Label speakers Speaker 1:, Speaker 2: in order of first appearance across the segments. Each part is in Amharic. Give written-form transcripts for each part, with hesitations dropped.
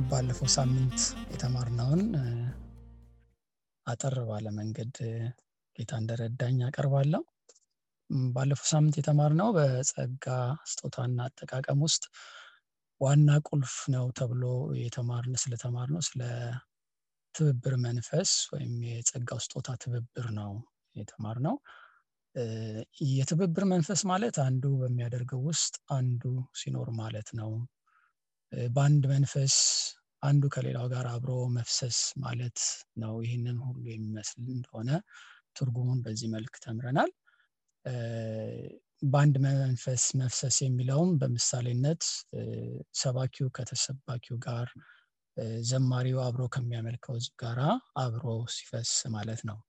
Speaker 1: ባለፈው ሳምንት የተማርነውን አጠር ባለ መንገድ ጌታ እንደረዳኝ አቀርባለሁ። ባለፈው ሳምንት የተማርነው በጸጋ ስጦታና አጠቃቀም ውስጥ ዋና ቁልፍ ነው ተብሎ ስለተማርነው ስለ ትብብር መንፈስ ወይም የጸጋው ስጦታ ትብብር ነው የተማርነው። የትብብር መንፈስ ማለት አንዱ በሚያደርገው ውስጥ አንዱ ሲኖር ማለት ነው። በአንድ መንፈስ አንዱ ከሌላው ጋር አብሮ መፍሰስ ማለት ነው። ይህንን ሁሉ የሚመስል እንደሆነ ትርጉሙን በዚህ መልክ ተምረናል። በአንድ መንፈስ መፍሰስ የሚለውም በምሳሌነት ሰባኪው ከተሰባኪው ጋር፣ ዘማሪው አብሮ ከሚያመልከው ሕዝብ ጋር አብሮ ሲፈስ ማለት ነው።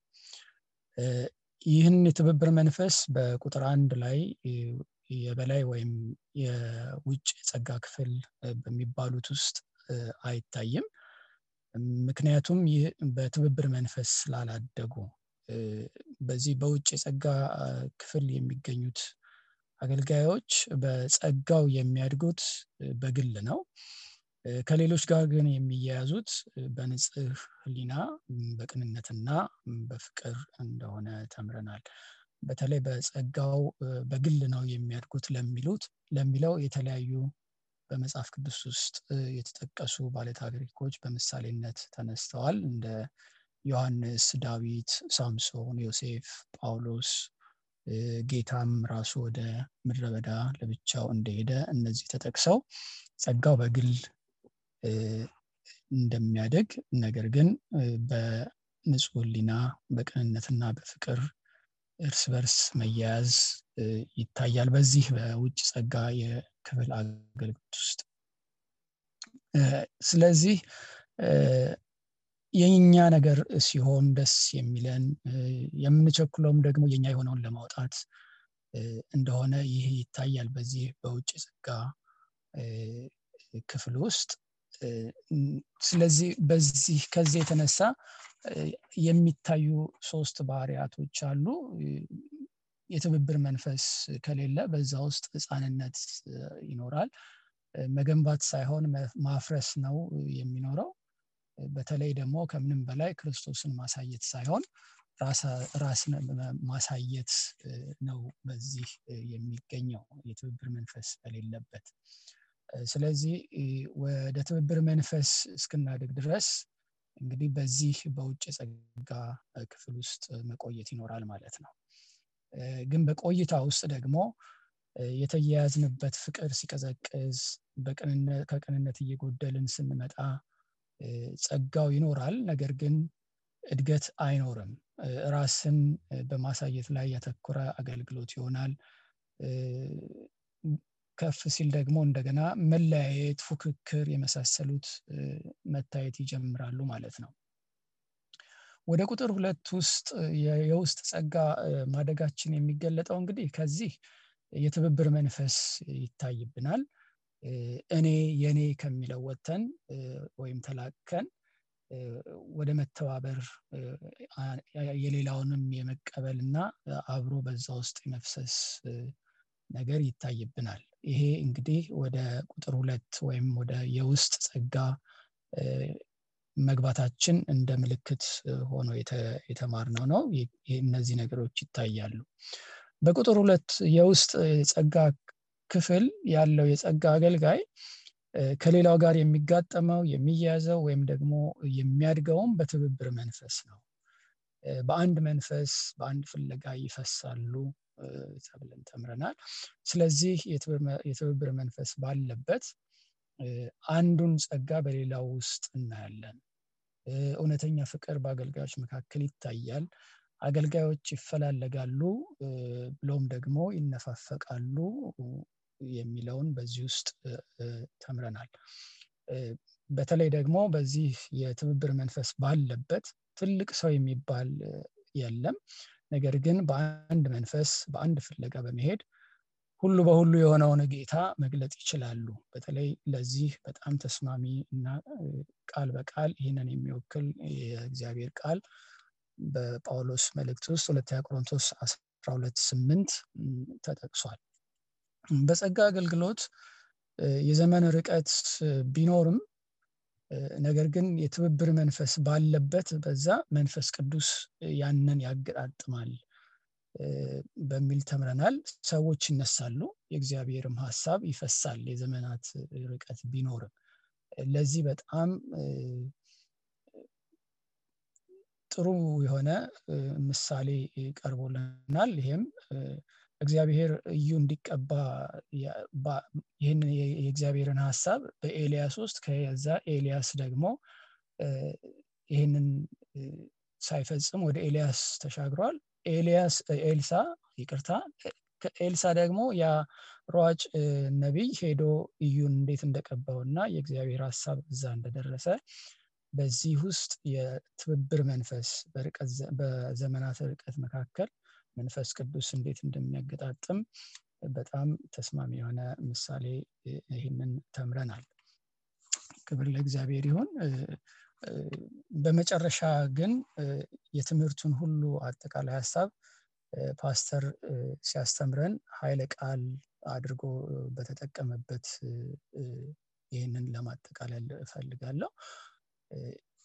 Speaker 1: ይህን የትብብር መንፈስ በቁጥር 1 ላይ የበላይ ወይም የውጭ የጸጋ ክፍል በሚባሉት ውስጥ አይታይም። ምክንያቱም ይህ በትብብር መንፈስ ስላላደጉ በዚህ በውጭ የጸጋ ክፍል የሚገኙት አገልጋዮች በጸጋው የሚያድጉት በግል ነው። ከሌሎች ጋር ግን የሚያያዙት በንጽህ ሕሊና በቅንነትና በፍቅር እንደሆነ ተምረናል። በተለይ በጸጋው በግል ነው የሚያድጉት ለሚለው የተለያዩ በመጽሐፍ ቅዱስ ውስጥ የተጠቀሱ ባለታሪኮች በምሳሌነት ተነስተዋል። እንደ ዮሐንስ፣ ዳዊት፣ ሳምሶን፣ ዮሴፍ፣ ጳውሎስ፣ ጌታም ራሱ ወደ ምድረ በዳ ለብቻው እንደሄደ እነዚህ ተጠቅሰው ጸጋው በግል እንደሚያድግ ነገር ግን በንጹህ ሕሊና በቅንነትና በፍቅር እርስ በርስ መያያዝ ይታያል በዚህ በውጭ ጸጋ የክፍል አገልግሎት ውስጥ። ስለዚህ የኛ ነገር ሲሆን ደስ የሚለን የምንቸኩለውም ደግሞ የኛ የሆነውን ለማውጣት እንደሆነ ይህ ይታያል በዚህ በውጭ ጸጋ ክፍል ውስጥ። ስለዚህ ከዚህ የተነሳ የሚታዩ 3 ባህሪያቶች አሉ። የትብብር መንፈስ ከሌለ በዛ ውስጥ ሕፃንነት ይኖራል። መገንባት ሳይሆን ማፍረስ ነው የሚኖረው። በተለይ ደግሞ ከምንም በላይ ክርስቶስን ማሳየት ሳይሆን ራስን ማሳየት ነው በዚህ የሚገኘው የትብብር መንፈስ በሌለበት። ስለዚህ ወደ ትብብር መንፈስ እስክናድግ ድረስ እንግዲህ በዚህ በውጭ ጸጋ ክፍል ውስጥ መቆየት ይኖራል ማለት ነው። ግን በቆይታ ውስጥ ደግሞ የተያያዝንበት ፍቅር ሲቀዘቅዝ ከቅንነት እየጎደልን ስንመጣ ጸጋው ይኖራል፣ ነገር ግን እድገት አይኖርም። ራስን በማሳየት ላይ ያተኮረ አገልግሎት ይሆናል። ከፍ ሲል ደግሞ እንደገና መለያየት፣ ፉክክር የመሳሰሉት መታየት ይጀምራሉ ማለት ነው። ወደ ቁጥር 2 ውስጥ የውስጥ ጸጋ ማደጋችን የሚገለጠው እንግዲህ ከዚህ የትብብር መንፈስ ይታይብናል። የኔ ከሚለው ወጥተን ወይም ተላቀን ወደ መተባበር የሌላውንም የመቀበልና አብሮ በዛ ውስጥ የመፍሰስ ነገር ይታይብናል። ይሄ እንግዲህ ወደ ቁጥር 2 ወይም ወደ የውስጥ ጸጋ መግባታችን እንደ ምልክት ሆኖ የተማርነው ነው። እነዚህ ነገሮች ይታያሉ። በቁጥር 2 የውስጥ ጸጋ ክፍል ያለው የጸጋ አገልጋይ ከሌላው ጋር የሚጋጠመው የሚያያዘው ወይም ደግሞ የሚያድገውም በትብብር መንፈስ ነው። በአንድ መንፈስ በአንድ ፍለጋ ይፈሳሉ ተብለን ተምረናል። ስለዚህ የትብብር መንፈስ ባለበት አንዱን ጸጋ በሌላው ውስጥ እናያለን። እውነተኛ ፍቅር በአገልጋዮች መካከል ይታያል። አገልጋዮች ይፈላለጋሉ ብሎም ደግሞ ይነፋፈቃሉ የሚለውን በዚህ ውስጥ ተምረናል። በተለይ ደግሞ በዚህ የትብብር መንፈስ ባለበት ትልቅ ሰው የሚባል የለም። ነገር ግን በአንድ መንፈስ በአንድ ፍለጋ በመሄድ ሁሉ በሁሉ የሆነውን ጌታ መግለጥ ይችላሉ። በተለይ ለዚህ በጣም ተስማሚ እና ቃል በቃል ይህንን የሚወክል የእግዚአብሔር ቃል በጳውሎስ መልእክት ውስጥ ሁለተኛ ቆሮንቶስ 12:8 ተጠቅሷል። በጸጋ አገልግሎት የዘመን ርቀት ቢኖርም ነገር ግን የትብብር መንፈስ ባለበት በዛ መንፈስ ቅዱስ ያንን ያገጣጥማል በሚል ተምረናል። ሰዎች ይነሳሉ፣ የእግዚአብሔርም ሐሳብ ይፈሳል የዘመናት ርቀት ቢኖርም። ለዚህ በጣም ጥሩ የሆነ ምሳሌ ቀርቦልናል። ይሄም እግዚአብሔር እዩ እንዲቀባ ይህን የእግዚአብሔርን ሐሳብ በኤልያስ ውስጥ ከዛ ኤልያስ ደግሞ ይህንን ሳይፈጽም ወደ ኤልያስ ተሻግሯል። ኤልሳ ደግሞ ያ ሯጭ ነቢይ ሄዶ እዩን እንዴት እንደቀባውና የእግዚአብሔር ሐሳብ እዛ እንደደረሰ በዚህ ውስጥ የትብብር መንፈስ በዘመናት ርቀት መካከል መንፈስ ቅዱስ እንዴት እንደሚያገጣጥም በጣም ተስማሚ የሆነ ምሳሌ ይህንን ተምረናል። ክብር ለእግዚአብሔር ይሁን። በመጨረሻ ግን የትምህርቱን ሁሉ አጠቃላይ ሐሳብ ፓስተር ሲያስተምረን ኃይለ ቃል አድርጎ በተጠቀመበት ይህንን ለማጠቃለል እፈልጋለሁ።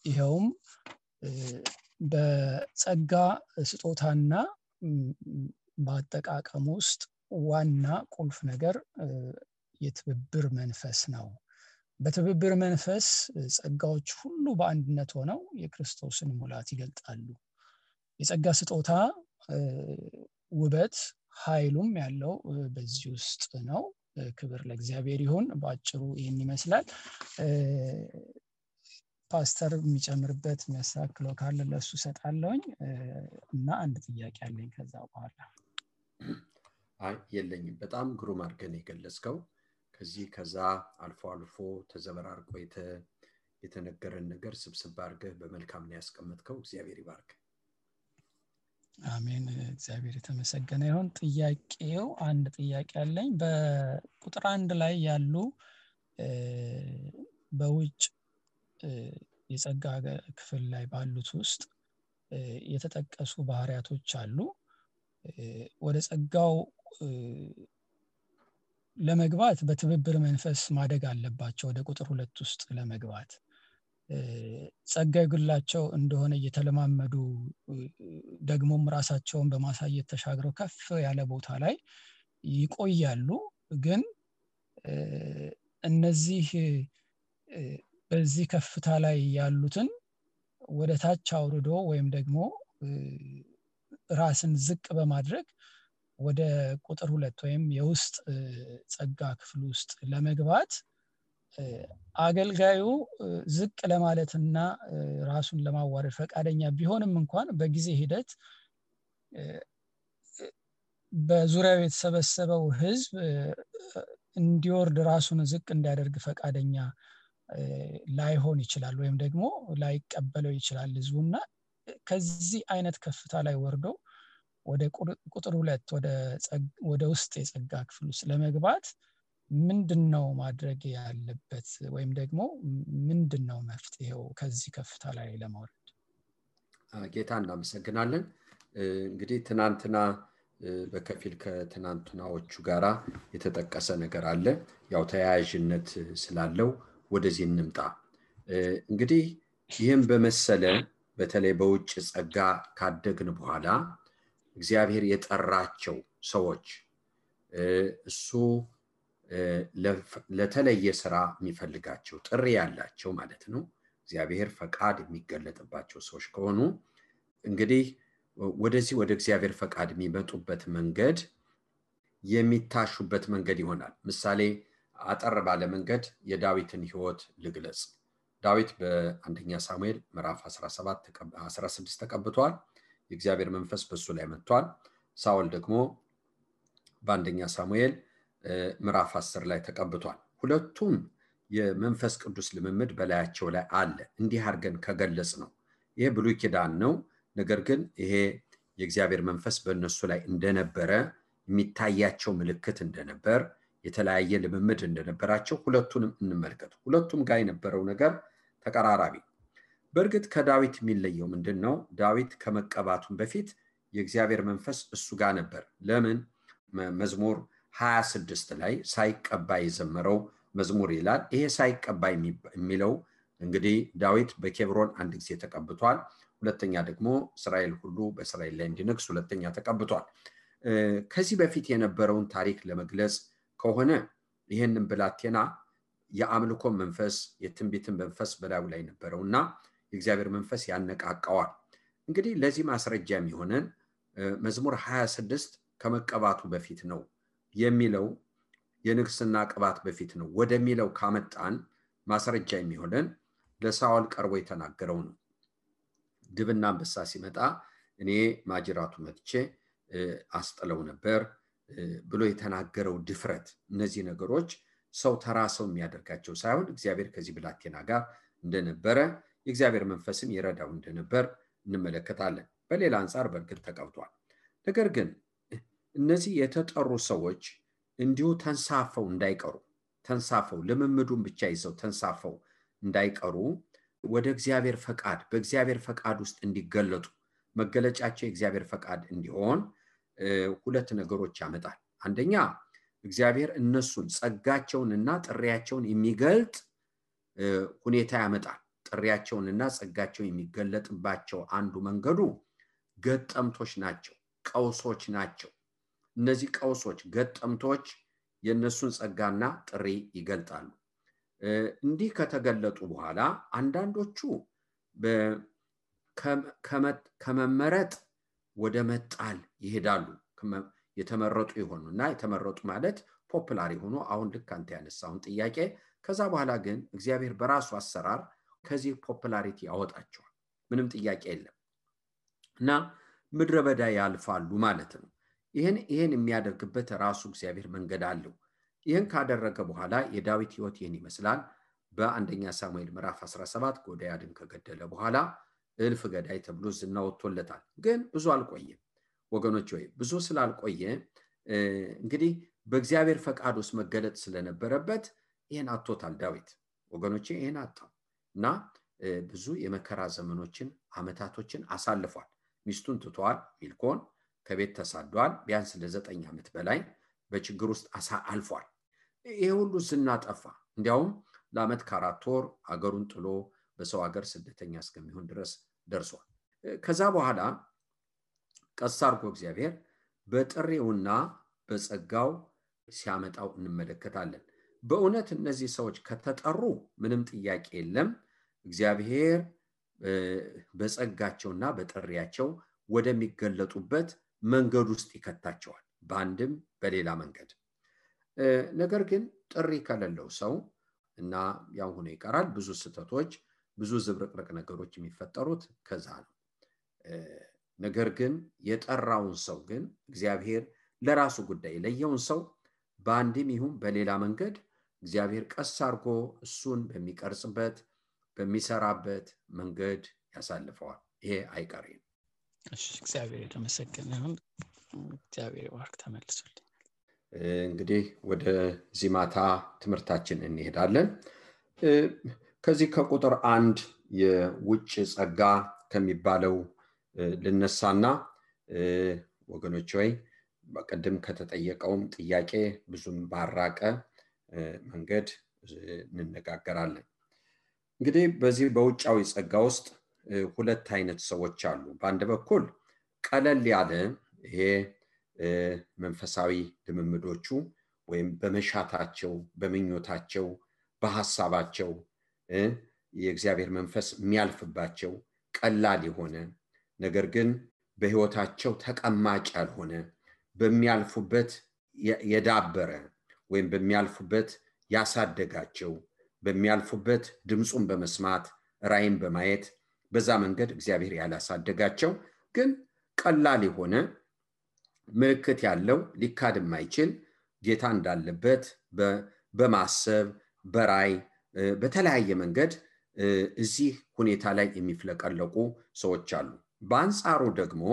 Speaker 1: ይሄውም በጸጋ ስጦታና በአጠቃቀም ውስጥ ዋና ቁልፍ ነገር የትብብር መንፈስ ነው። በትብብር መንፈስ ጸጋዎች ሁሉ በአንድነት ሆነው የክርስቶስን ሙላት ይገልጣሉ። የጸጋ ስጦታ ውበት ኃይሉም ያለው በዚህ ውስጥ ነው። ክብር ለእግዚአብሔር ይሁን። በአጭሩ ይህን ይመስላል። ፓስተር የሚጨምርበት የሚያስተካክለው ካለ ለሱ ሰጣለሁኝ እና አንድ ጥያቄ አለኝ ከዛ በኋላ።
Speaker 2: የለኝም። በጣም ግሩም አድርገን የገለጽከው ከዛ አልፎ ተዘበራርቆ የተነገረን ነገር ስብስብ አድርገህ በመልካም ነው ያስቀመጥከው። እግዚአብሔር ይባርክ።
Speaker 1: አሜን። እግዚአብሔር የተመሰገነ ይሁን። ጥያቄው አንድ ጥያቄ አለኝ። በቁጥር 1 ላይ ያሉ በውጭ የጸጋ ክፍል ላይ ባሉት ውስጥ የተጠቀሱ ባህሪያቶች አሉ። ወደ ጸጋው ለመግባት በትብብር መንፈስ ማደግ አለባቸው። ወደ ቁጥር 2 ውስጥ ለመግባት ጸጋ ይግላቸው እንደሆነ እየተለማመዱ ደግሞም ራሳቸውን በማሳየት ተሻግረው ከፍ ያለ ቦታ ላይ ይቆያሉ። ግን እነዚህ በዚህ ከፍታ ላይ ያሉትን ወደ ታች አውርዶ ወይም ደግሞ ራስን ዝቅ በማድረግ ወደ ቁጥር 2 ወይም የውስጥ ጸጋ ክፍል ውስጥ ለመግባት አገልጋዩ ዝቅ ለማለትና ራሱን ለማዋረድ ፈቃደኛ ቢሆንም እንኳን በጊዜ ሂደት በዙሪያው የተሰበሰበው ሕዝብ እንዲወርድ ራሱን ዝቅ እንዲያደርግ ፈቃደኛ ላይሆን ይችላል ወይም ደግሞ ላይቀበለው ይችላል ሕዝቡና ከዚህ አይነት ከፍታ ላይ ወርዶ ወደ ቁጥር 2 ወደ ውስጥ የጸጋ ክፍል ውስጥ ለመግባት ምንድነው ማድረግ ያለበት ወይም ደግሞ ምንድነው መፍትሄው ከዚህ ከፍታ ላይ ለመውረድ?
Speaker 2: ጌታ እናመሰግናለን። እንግዲህ ትናንትና በከፊል ከትናንትናዎቹ ጋራ የተጠቀሰ ነገር አለ። ያው ተያያዥነት ስላለው ወደዚህ እንምጣ። እንግዲህ ይህም በመሰለ በተለይ በውጭ ጸጋ ካደግን በኋላ እግዚአብሔር የጠራቸው ሰዎች እሱ ለተለየ ስራ የሚፈልጋቸው ጥሪ ያላቸው ማለት ነው። እግዚአብሔር ፈቃድ የሚገለጥባቸው ሰዎች ከሆኑ እንግዲህ ወደዚህ ወደ እግዚአብሔር ፈቃድ የሚመጡበት መንገድ የሚታሹበት መንገድ ይሆናል። ምሳሌ አጠር ባለ መንገድ የዳዊትን ሕይወት ልግለጽ። ዳዊት በአንደኛ ሳሙኤል ምዕራፍ 16 ተቀብቷል። የእግዚአብሔር መንፈስ በሱ ላይ መጥቷል። ሳኦል ደግሞ በአንደኛ ሳሙኤል ምዕራፍ 10 ላይ ተቀብቷል። ሁለቱም የመንፈስ ቅዱስ ልምምድ በላያቸው ላይ አለ። እንዲህ አድርገን ከገለጽ ነው ይሄ ብሉይ ኪዳን ነው። ነገር ግን ይሄ የእግዚአብሔር መንፈስ በእነሱ ላይ እንደነበረ የሚታያቸው ምልክት እንደነበር የተለያየ ልምምድ እንደነበራቸው ሁለቱንም እንመልከት። ሁለቱም ጋር የነበረው ነገር ተቀራራቢ። በእርግጥ ከዳዊት የሚለየው ምንድነው? ዳዊት ከመቀባቱም በፊት የእግዚአብሔር መንፈስ እሱ ጋር ነበር። ለምን? መዝሙር 26 ላይ ሳይቀባ የዘመረው መዝሙር ይላል። ይሄ ሳይቀባ የሚለው እንግዲህ ዳዊት በኬብሮን አንድ ጊዜ ተቀብቷል። ሁለተኛ ደግሞ እስራኤል ሁሉ በእስራኤል ላይ እንዲነግስ ሁለተኛ ተቀብቷል። ከዚህ በፊት የነበረውን ታሪክ ለመግለጽ ከሆነ ይህንን ብላቴና የአምልኮ መንፈስ የትንቢትን መንፈስ በላዩ ላይ ነበረውና የእግዚአብሔር መንፈስ ያነቃቃዋል። እንግዲህ ለዚህ ማስረጃ የሚሆነን መዝሙር 26 ከመቀባቱ በፊት ነው የሚለው የንግስና ቅባት በፊት ነው ወደሚለው ካመጣን ማስረጃ የሚሆነን ለሳኦል ቀርቦ የተናገረው ነው። ድብና አንበሳ ሲመጣ እኔ ማጅራቱ መጥቼ አስጥለው ነበር ብሎ የተናገረው ድፍረት፣ እነዚህ ነገሮች ሰው ተራ ሰው የሚያደርጋቸው ሳይሆን እግዚአብሔር ከዚህ ብላቴና ጋር እንደነበረ የእግዚአብሔር መንፈስም ይረዳው እንደነበር እንመለከታለን። በሌላ አንፃር በእርግጥ ተቀብቷል። ነገር ግን እነዚህ የተጠሩ ሰዎች እንዲሁ ተንሳፈው እንዳይቀሩ፣ ተንሳፈው ልምምዱን ብቻ ይዘው ተንሳፈው እንዳይቀሩ ወደ እግዚአብሔር ፈቃድ በእግዚአብሔር ፈቃድ ውስጥ እንዲገለጡ መገለጫቸው የእግዚአብሔር ፈቃድ እንዲሆን ሁለት ነገሮች ያመጣል። አንደኛ እግዚአብሔር እነሱን ጸጋቸውንና ጥሪያቸውን የሚገልጥ ሁኔታ ያመጣል። ጥሪያቸውንና ጸጋቸው የሚገለጥባቸው አንዱ መንገዱ ገጠምቶች ናቸው፣ ቀውሶች ናቸው። እነዚህ ቀውሶች ገጠምቶች የነሱን ጸጋና ጥሪ ይገልጣሉ። እንዲህ ከተገለጡ በኋላ አንዳንዶቹ ከመመረጥ ወደ መጣል ይሄዳሉ። የተመረጡ ይሆኑና የተመረጡ ማለት ፖፑላር ሆኖ አሁን ልክ አንተ ያነሳውን ጥያቄ ከዛ በኋላ ግን እግዚአብሔር በራሱ አሰራር ከዚህ ፖፑላሪቲ ያወጣቸዋል። ምንም ጥያቄ የለም እና ምድረ በዳ ያልፋሉ ማለት ነው። ይሄን የሚያደርግበት ራሱ እግዚአብሔር መንገድ አለው። ይሄን ካደረገ በኋላ የዳዊት ሕይወት ይሄን ይመስላል። በአንደኛ ሳሙኤል ምዕራፍ 17 ጎልያድን ከገደለ በኋላ እልፍ ገዳይ ተብሎ ዝና ወጥቶለታል። ግን ብዙ አልቆየም ወገኖች። ወይ ብዙ ስላልቆየ እንግዲህ በእግዚአብሔር ፈቃድ ውስጥ መገለጥ ስለነበረበት ይሄን አጥቶታል ዳዊት ወገኖቼ። ይሄን አጣው እና ብዙ የመከራ ዘመኖችን አመታቶችን አሳልፏል። ሚስቱን ትቷል፣ ሚልኮን ከቤት ተሳዷል። ቢያንስ ለ9 ዓመት በላይ በችግር ውስጥ አልፏል። ይሄ ሁሉ ዝና ጠፋ። እንዲያውም ለዓመት ከ4 ወር አገሩን ጥሎ በሰው ሀገር ስደተኛ እስከሚሆን ድረስ ደርሷል። ከዛ በኋላ ቀስ አድርጎ እግዚአብሔር በጥሪውና በጸጋው ሲያመጣው እንመለከታለን። በእውነት እነዚህ ሰዎች ከተጠሩ ምንም ጥያቄ የለም፣ እግዚአብሔር በጸጋቸውና በጥሪያቸው ወደሚገለጡበት መንገድ ውስጥ ይከታቸዋል፣ በአንድም በሌላ መንገድ። ነገር ግን ጥሪ ከሌለው ሰው እና ያው ሆኖ ይቀራል። ብዙ ስህተቶች፣ ብዙ ዝብርቅርቅ ነገሮች የሚፈጠሩት ከዛ ነው። ነገር ግን የጠራውን ሰው ግን እግዚአብሔር ለራሱ ጉዳይ ለየውን ሰው በአንድም ይሁን በሌላ መንገድ እግዚአብሔር ቀስ አድርጎ እሱን በሚቀርጽበት በሚሰራበት መንገድ ያሳልፈዋል። ይሄ አይቀሬ ነው።
Speaker 1: እሺ፣ እግዚአብሔር የተመሰገነ ይሁን። እግዚአብሔር ይባርክ። ተመልሱልኝ።
Speaker 2: እንግዲህ ወደ ዚማታ ትምህርታችን እንሄዳለን። ከዚህ ከቁጥር 1 የውጭ ጸጋ ከሚባለው ልነሳና ወገኖች ወይ በቀደም ከተጠየቀውም ጥያቄ ብዙም ባራቀ መንገድ እንነጋገራለን። እንግዲህ በዚህ በውጫዊ ጸጋ ውስጥ ሁለት አይነት ሰዎች አሉ። በአንድ በኩል ቀለል ያለ ይሄ መንፈሳዊ ልምምዶቹ ወይም በመሻታቸው በመኞታቸው በሐሳባቸው የእግዚአብሔር መንፈስ የሚያልፍባቸው ቀላል የሆነ ነገር ግን በህይወታቸው ተቀማጭ ያልሆነ በሚያልፉበት የዳበረ ወይም በሚያልፉበት ያሳደጋቸው በሚያልፉበት ድምጹን በመስማት ራእይን በማየት በዛ መንገድ እግዚአብሔር ያላሳደጋቸው ግን ቀላል የሆነ ምልክት ያለው ሊካድ የማይችል ጌታ እንዳለበት በማሰብ በራእይ በተለያየ መንገድ እዚህ ሁኔታ ላይ የሚፍለቀለቁ ሰዎች አሉ። በአንጻሩ ደግሞ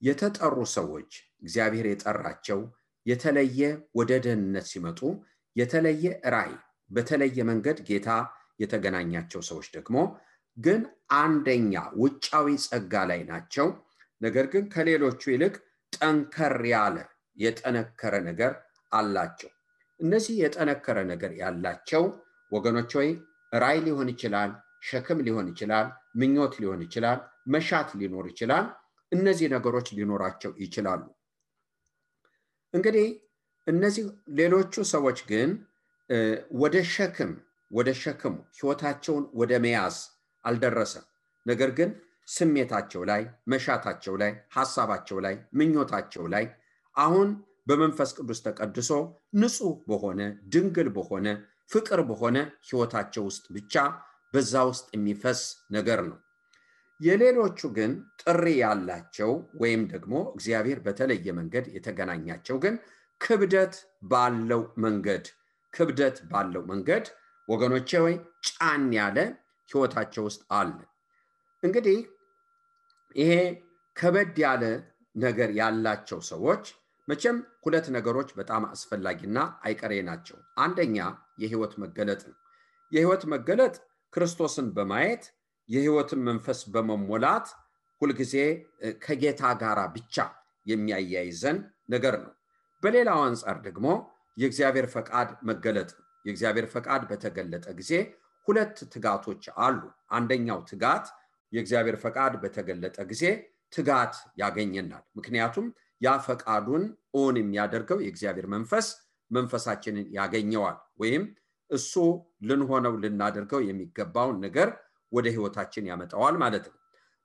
Speaker 2: የተጠሩ ሰዎች እግዚአብሔር የጠራቸው የተለየ ወደ ደህንነት ሲመጡ የተለየ ራእይ በተለየ መንገድ ጌታ የተገናኛቸው ሰዎች ደግሞ ግን አንደኛ ውጫዊ ጸጋ ላይ ናቸው። ነገር ግን ከሌሎቹ ይልቅ ጠንከር ያለ የጠነከረ ነገር አላቸው። እነዚህ የጠነከረ ነገር ያላቸው ወገኖች ሆይ ራእይ ሊሆን ይችላል፣ ሸክም ሊሆን ይችላል፣ ምኞት ሊሆን ይችላል፣ መሻት ሊኖር ይችላል። እነዚህ ነገሮች ሊኖራቸው ይችላሉ። እንግዲህ እነዚህ ሌሎቹ ሰዎች ግን ወደ ሸክም ህይወታቸውን ወደ መያዝ አልደረሰም። ነገር ግን ስሜታቸው ላይ፣ መሻታቸው ላይ፣ ሐሳባቸው ላይ፣ ምኞታቸው ላይ አሁን በመንፈስ ቅዱስ ተቀድሶ ንጹህ በሆነ ድንግል በሆነ ፍቅር በሆነ ህይወታቸው ውስጥ ብቻ በዛ ውስጥ የሚፈስ ነገር ነው። የሌሎቹ ግን ጥሪ ያላቸው ወይም ደግሞ እግዚአብሔር በተለየ መንገድ የተገናኛቸው ግን ክብደት ባለው መንገድ ወገኖቼ ወይ ጫን ያለ ህይወታቸው ውስጥ አለ። እንግዲህ ይሄ ከበድ ያለ ነገር ያላቸው ሰዎች መቼም ሁለት ነገሮች በጣም አስፈላጊና አይቀሬ ናቸው። አንደኛ የህይወት መገለጥ ነው። የህይወት መገለጥ ክርስቶስን በማየት የህይወትን መንፈስ በመሞላት ሁልጊዜ ከጌታ ጋር ብቻ የሚያያይዘን ነገር ነው። በሌላው አንፃር ደግሞ የእግዚአብሔር ፈቃድ መገለጥ ነው። የእግዚአብሔር ፈቃድ በተገለጠ ጊዜ ሁለት ትጋቶች አሉ። አንደኛው ትጋት የእግዚአብሔር ፈቃድ በተገለጠ ጊዜ ትጋት ያገኘናል። ምክንያቱም ያ ፈቃዱን ኦን የሚያደርገው የእግዚአብሔር መንፈሳችንን ያገኘዋል ወይም እሱ ልንሆነው ልናደርገው የሚገባውን ነገር ወደ ህይወታችን ያመጣዋል ማለት ነው።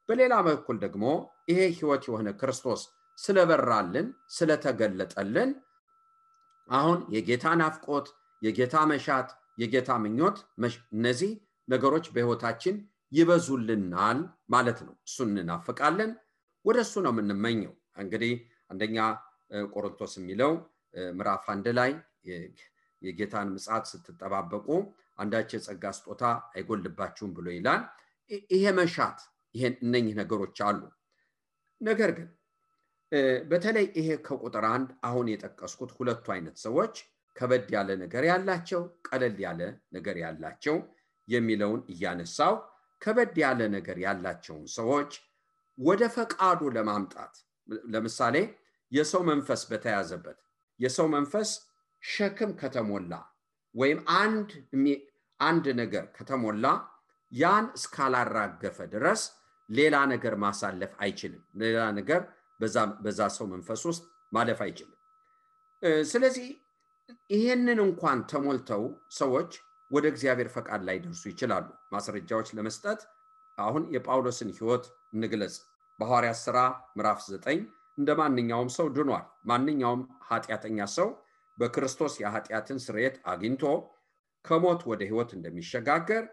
Speaker 2: በሌላ በኩል ደግሞ ይሄ ህይወት የሆነ ክርስቶስ ስለበራልን ስለተገለጠልን አሁን የጌታ ናፍቆት፣ የጌታ መሻት፣ የጌታ ምኞት እነዚህ ነገሮች በህይወታችን ይበዙልናል ማለት ነው። እሱን እናፍቃለን፣ ወደሱ ነው የምንመኘው። እንግዲህ አንደኛ ቆሮንቶስ የሚለው ምዕራፍ 1 ላይ የጌታን ምጽአት ስትጠባበቁ አንዳች የጸጋ ስጦታ አይጎልባችሁም ብሎ ይላል። ይሄ መሻት እነኚህ ነገሮች አሉ። ነገር ግን በተለይ ይሄ ከቁጥር 1 አሁን የጠቀስኩት ሁለቱ አይነት ሰዎች ከበድ ያለ ነገር ያላቸው፣ ቀለል ያለ ነገር ያላቸው የሚለውን እያነሳው ከበድ ያለ ነገር ያላቸውን ሰዎች ወደ ፈቃዱ ለማምጣት ለምሳሌ የሰው መንፈስ በተያዘበት የሰው መንፈስ ሸክም ከተሞላ ወይም አንድ ነገር ከተሞላ ያን እስካላራገፈ ድረስ ሌላ ነገር ማሳለፍ አይችልም። ሌላ ነገር በዛ ሰው መንፈስ ውስጥ ማለፍ አይችልም። ስለዚህ ይሄንን እንኳን ተሞልተው ሰዎች ወደ እግዚአብሔር ፈቃድ ላይ ደርሱ ይችላሉ። ማስረጃዎች ለመስጠት አሁን የጳውሎስን ህይወት እንግለጽ። በሐዋርያት ሥራ ምዕራፍ 9 እንደማንኛውም ሰው ድኗል። ማንኛውም ኃጢአተኛ ሰው በክርስቶስ የኃጢአትን ስርየት አግኝቶ ከሞት ወደ ህይወት እንደሚሸጋገር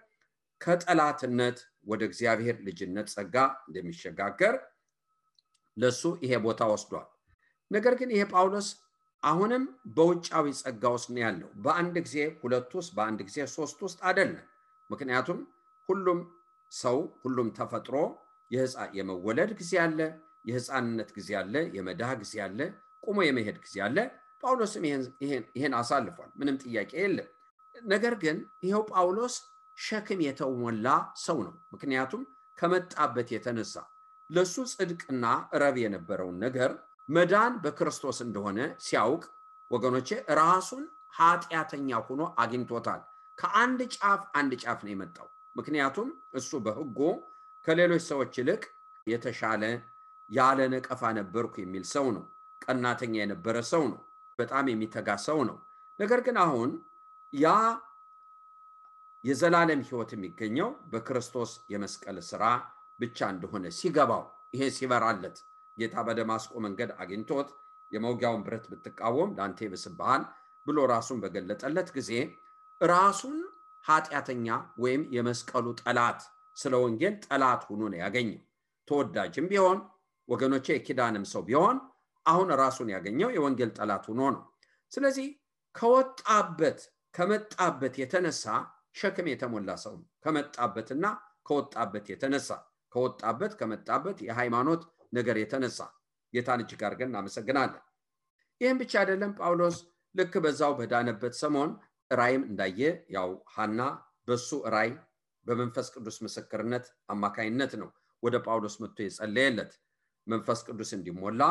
Speaker 2: ከጠላትነት ወደ እግዚአብሔር ልጅነት ጸጋ እንደሚሸጋገር ለሱ ይሄ ቦታ ወስዷል። ነገር ግን ይሄ ጳውሎስ አሁንም በውጫዊ ጸጋ ውስጥ ነው ያለው። በአንድ ጊዜ ሁለት ውስጥ በአንድ ጊዜ ሶስት ውስጥ አይደለም። ምክንያቱም ሁሉም ተፈጥሮ የመወለድ ጊዜ አለ፣ የህፃንነት ጊዜ አለ፣ የመዳህ ጊዜ አለ፣ ቆሞ የመሄድ ጊዜ አለ። ጳውሎስም ይሄን አሳልፏል፣ ምንም ጥያቄ የለም። ነገር ግን ይሄው ጳውሎስ ሸክም የተሞላ ሰው ነው። ምክንያቱም ከመጣበት የተነሳ ለሱ ጽድቅና ረብ የነበረውን ነገር መዳን በክርስቶስ እንደሆነ ሲያውቅ ወገኖቼ ራሱን ኃጢአተኛ ሆኖ አግኝቶታል። ከአንድ ጫፍ ነው የመጣው። ምክንያቱም እሱ በህጎ ከሌሎች ሰዎች ይልቅ የተሻለ ያለ ነቀፋ ነበርኩ የሚል ሰው ነው። ቀናተኛ የነበረ ሰው ነው። በጣም የሚተጋ ሰው ነው። ነገር ግን አሁን ያ የዘላለም ህይወት የሚገኘው በክርስቶስ የመስቀል ሥራ ብቻ እንደሆነ ሲገባው ይሄ ሲበራለት ጌታ በደማስቆ መንገድ አግኝቶት የመውጊያውን ብረት ብትቃወም ላንተ ይብስብሃል ብሎ ራሱን በገለጠለት ጊዜ ራሱን ኃጢአተኛ ወይም የመስቀሉ ጠላት ስለ ወንጌል ጠላት ሆኖ ነው ያገኘው። ተወዳጅም ቢሆን ወገኖቼ የኪዳንም ሰው ቢሆን አሁን ራሱን ያገኘው የወንጌል ጠላት ሆኖ ነው። ስለዚህ ከመጣበት የተነሳ ሸክም የተሞላ ሰው ነው። ከመጣበትና ከመጣበት የሃይማኖት ነገር የተነሳ ጌታን እጅግ አድርገን እናመሰግናለን። ይህም ብቻ አይደለም። ጳውሎስ ልክ በዛው በዳነበት ሰሞን ራእይም እንዳየ ያው ሐና በሱ ራእይ በመንፈስ ቅዱስ ምስክርነት አማካይነት ነው ወደ ጳውሎስ መጥቶ የጸለየለት መንፈስ ቅዱስ እንዲሞላ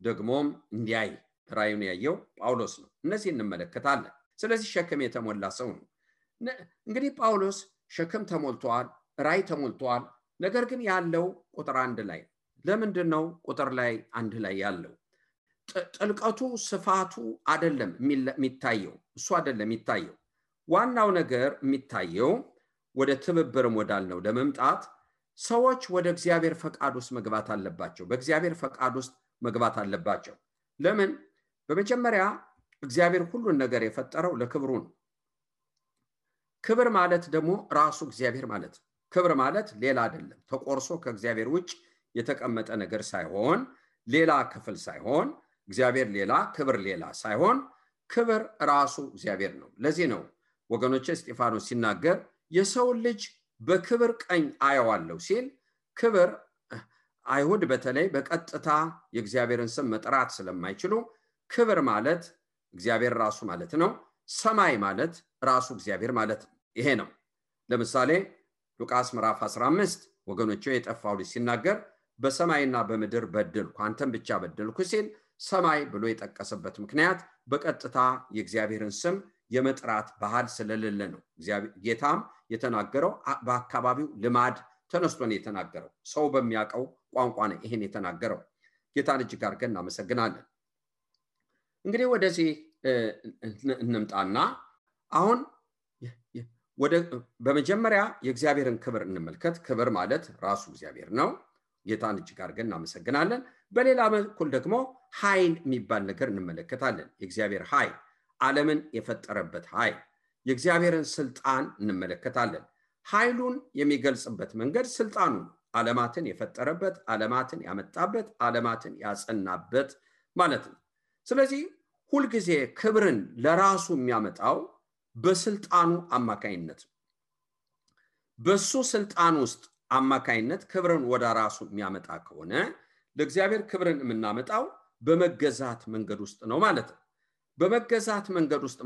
Speaker 2: ደግሞም እንዲያይ ራእዩን ያየው ጳውሎስ ነው። እነዚህ እንመለከታለን። ስለዚህ ሸክም የተሞላ ሰው ነው። እንግዲህ ጳውሎስ ሸክም ተሞልቷል፣ ራእይ ተሞልቷል። ነገር ግን ያለው ቁጥር 1 ላይ ለምንድን ነው ቁጥር ላይ 1 ላይ ያለው? ጥልቀቱ ስፋቱ አይደለም የሚታየው፣ እሱ አይደለም የሚታየው። ዋናው ነገር የሚታየው ወደ ትብብርም ወዳልነው ለመምጣት ሰዎች ወደ እግዚአብሔር ፈቃድ ውስጥ መግባት አለባቸው። በእግዚአብሔር ፈቃድ ውስጥ መግባት አለባቸው። ለምን? በመጀመሪያ እግዚአብሔር ሁሉን ነገር የፈጠረው ለክብሩ ነው። ክብር ማለት ደግሞ ራሱ እግዚአብሔር ማለት ነው። ክብር ማለት ሌላ አይደለም። ተቆርሶ ከእግዚአብሔር ውጭ የተቀመጠ ነገር ሳይሆን፣ ሌላ ክፍል ሳይሆን፣ እግዚአብሔር ሌላ ክብር ሌላ ሳይሆን፣ ክብር ራሱ እግዚአብሔር ነው። ለዚህ ነው ወገኖቼ እስጢፋኖስ ሲናገር የሰው ልጅ በክብር ቀኝ አየዋለሁ ሲል፣ ክብር አይሁድ በተለይ በቀጥታ የእግዚአብሔርን ስም መጥራት ስለማይችሉ ክብር ማለት እግዚአብሔር ራሱ ማለት ነው። ሰማይ ማለት ራሱ እግዚአብሔር ማለት ነው። ይሄ ነው። ለምሳሌ ሉቃስ ምዕራፍ 15 ወገኖቼ የጠፋው ልጅ ሲናገር በሰማይና በምድር በደልኩ አንተም ብቻ በደልኩ ሲል ሰማይ ብሎ የጠቀሰበት ምክንያት በቀጥታ የእግዚአብሔርን ስም የመጥራት ባህል ስለሌለ ነው። ጌታም የተናገረው በአካባቢው ልማድ ተነስቶ ነው የተናገረው። ሰው በሚያውቀው ቋንቋ ነው ይሄን የተናገረው። ጌታን እጅግ አድርገን እናመሰግናለን። እንግዲህ ወደዚህ እንምጣና አሁን በመጀመሪያ የእግዚአብሔርን ክብር እንመልከት። ክብር ማለት ራሱ እግዚአብሔር ነው። ጌታን እጅግ አድርገን እናመሰግናለን። በሌላ በኩል ደግሞ ኃይል የሚባል ነገር እንመለከታለን። የእግዚአብሔር ኃይል፣ ዓለምን የፈጠረበት ኃይል፣ የእግዚአብሔርን ስልጣን እንመለከታለን። ኃይሉን የሚገልጽበት መንገድ ስልጣኑ ነው። ዓለማትን የፈጠረበት፣ ዓለማትን ያመጣበት፣ ዓለማትን ያጸናበት ማለት ነው። ስለዚህ ሁልጊዜ ክብርን ለራሱ የሚያመጣው በስልጣኑ አማካይነት ነው። በሱ ስልጣን ውስጥ አማካይነት ክብርን ወደ ራሱ የሚያመጣ ከሆነ ለእግዚአብሔር ክብርን የምናመጣው በመገዛት መንገድ ውስጥ ነው ማለት ነው። በመገዛት መንገድ ውስጥ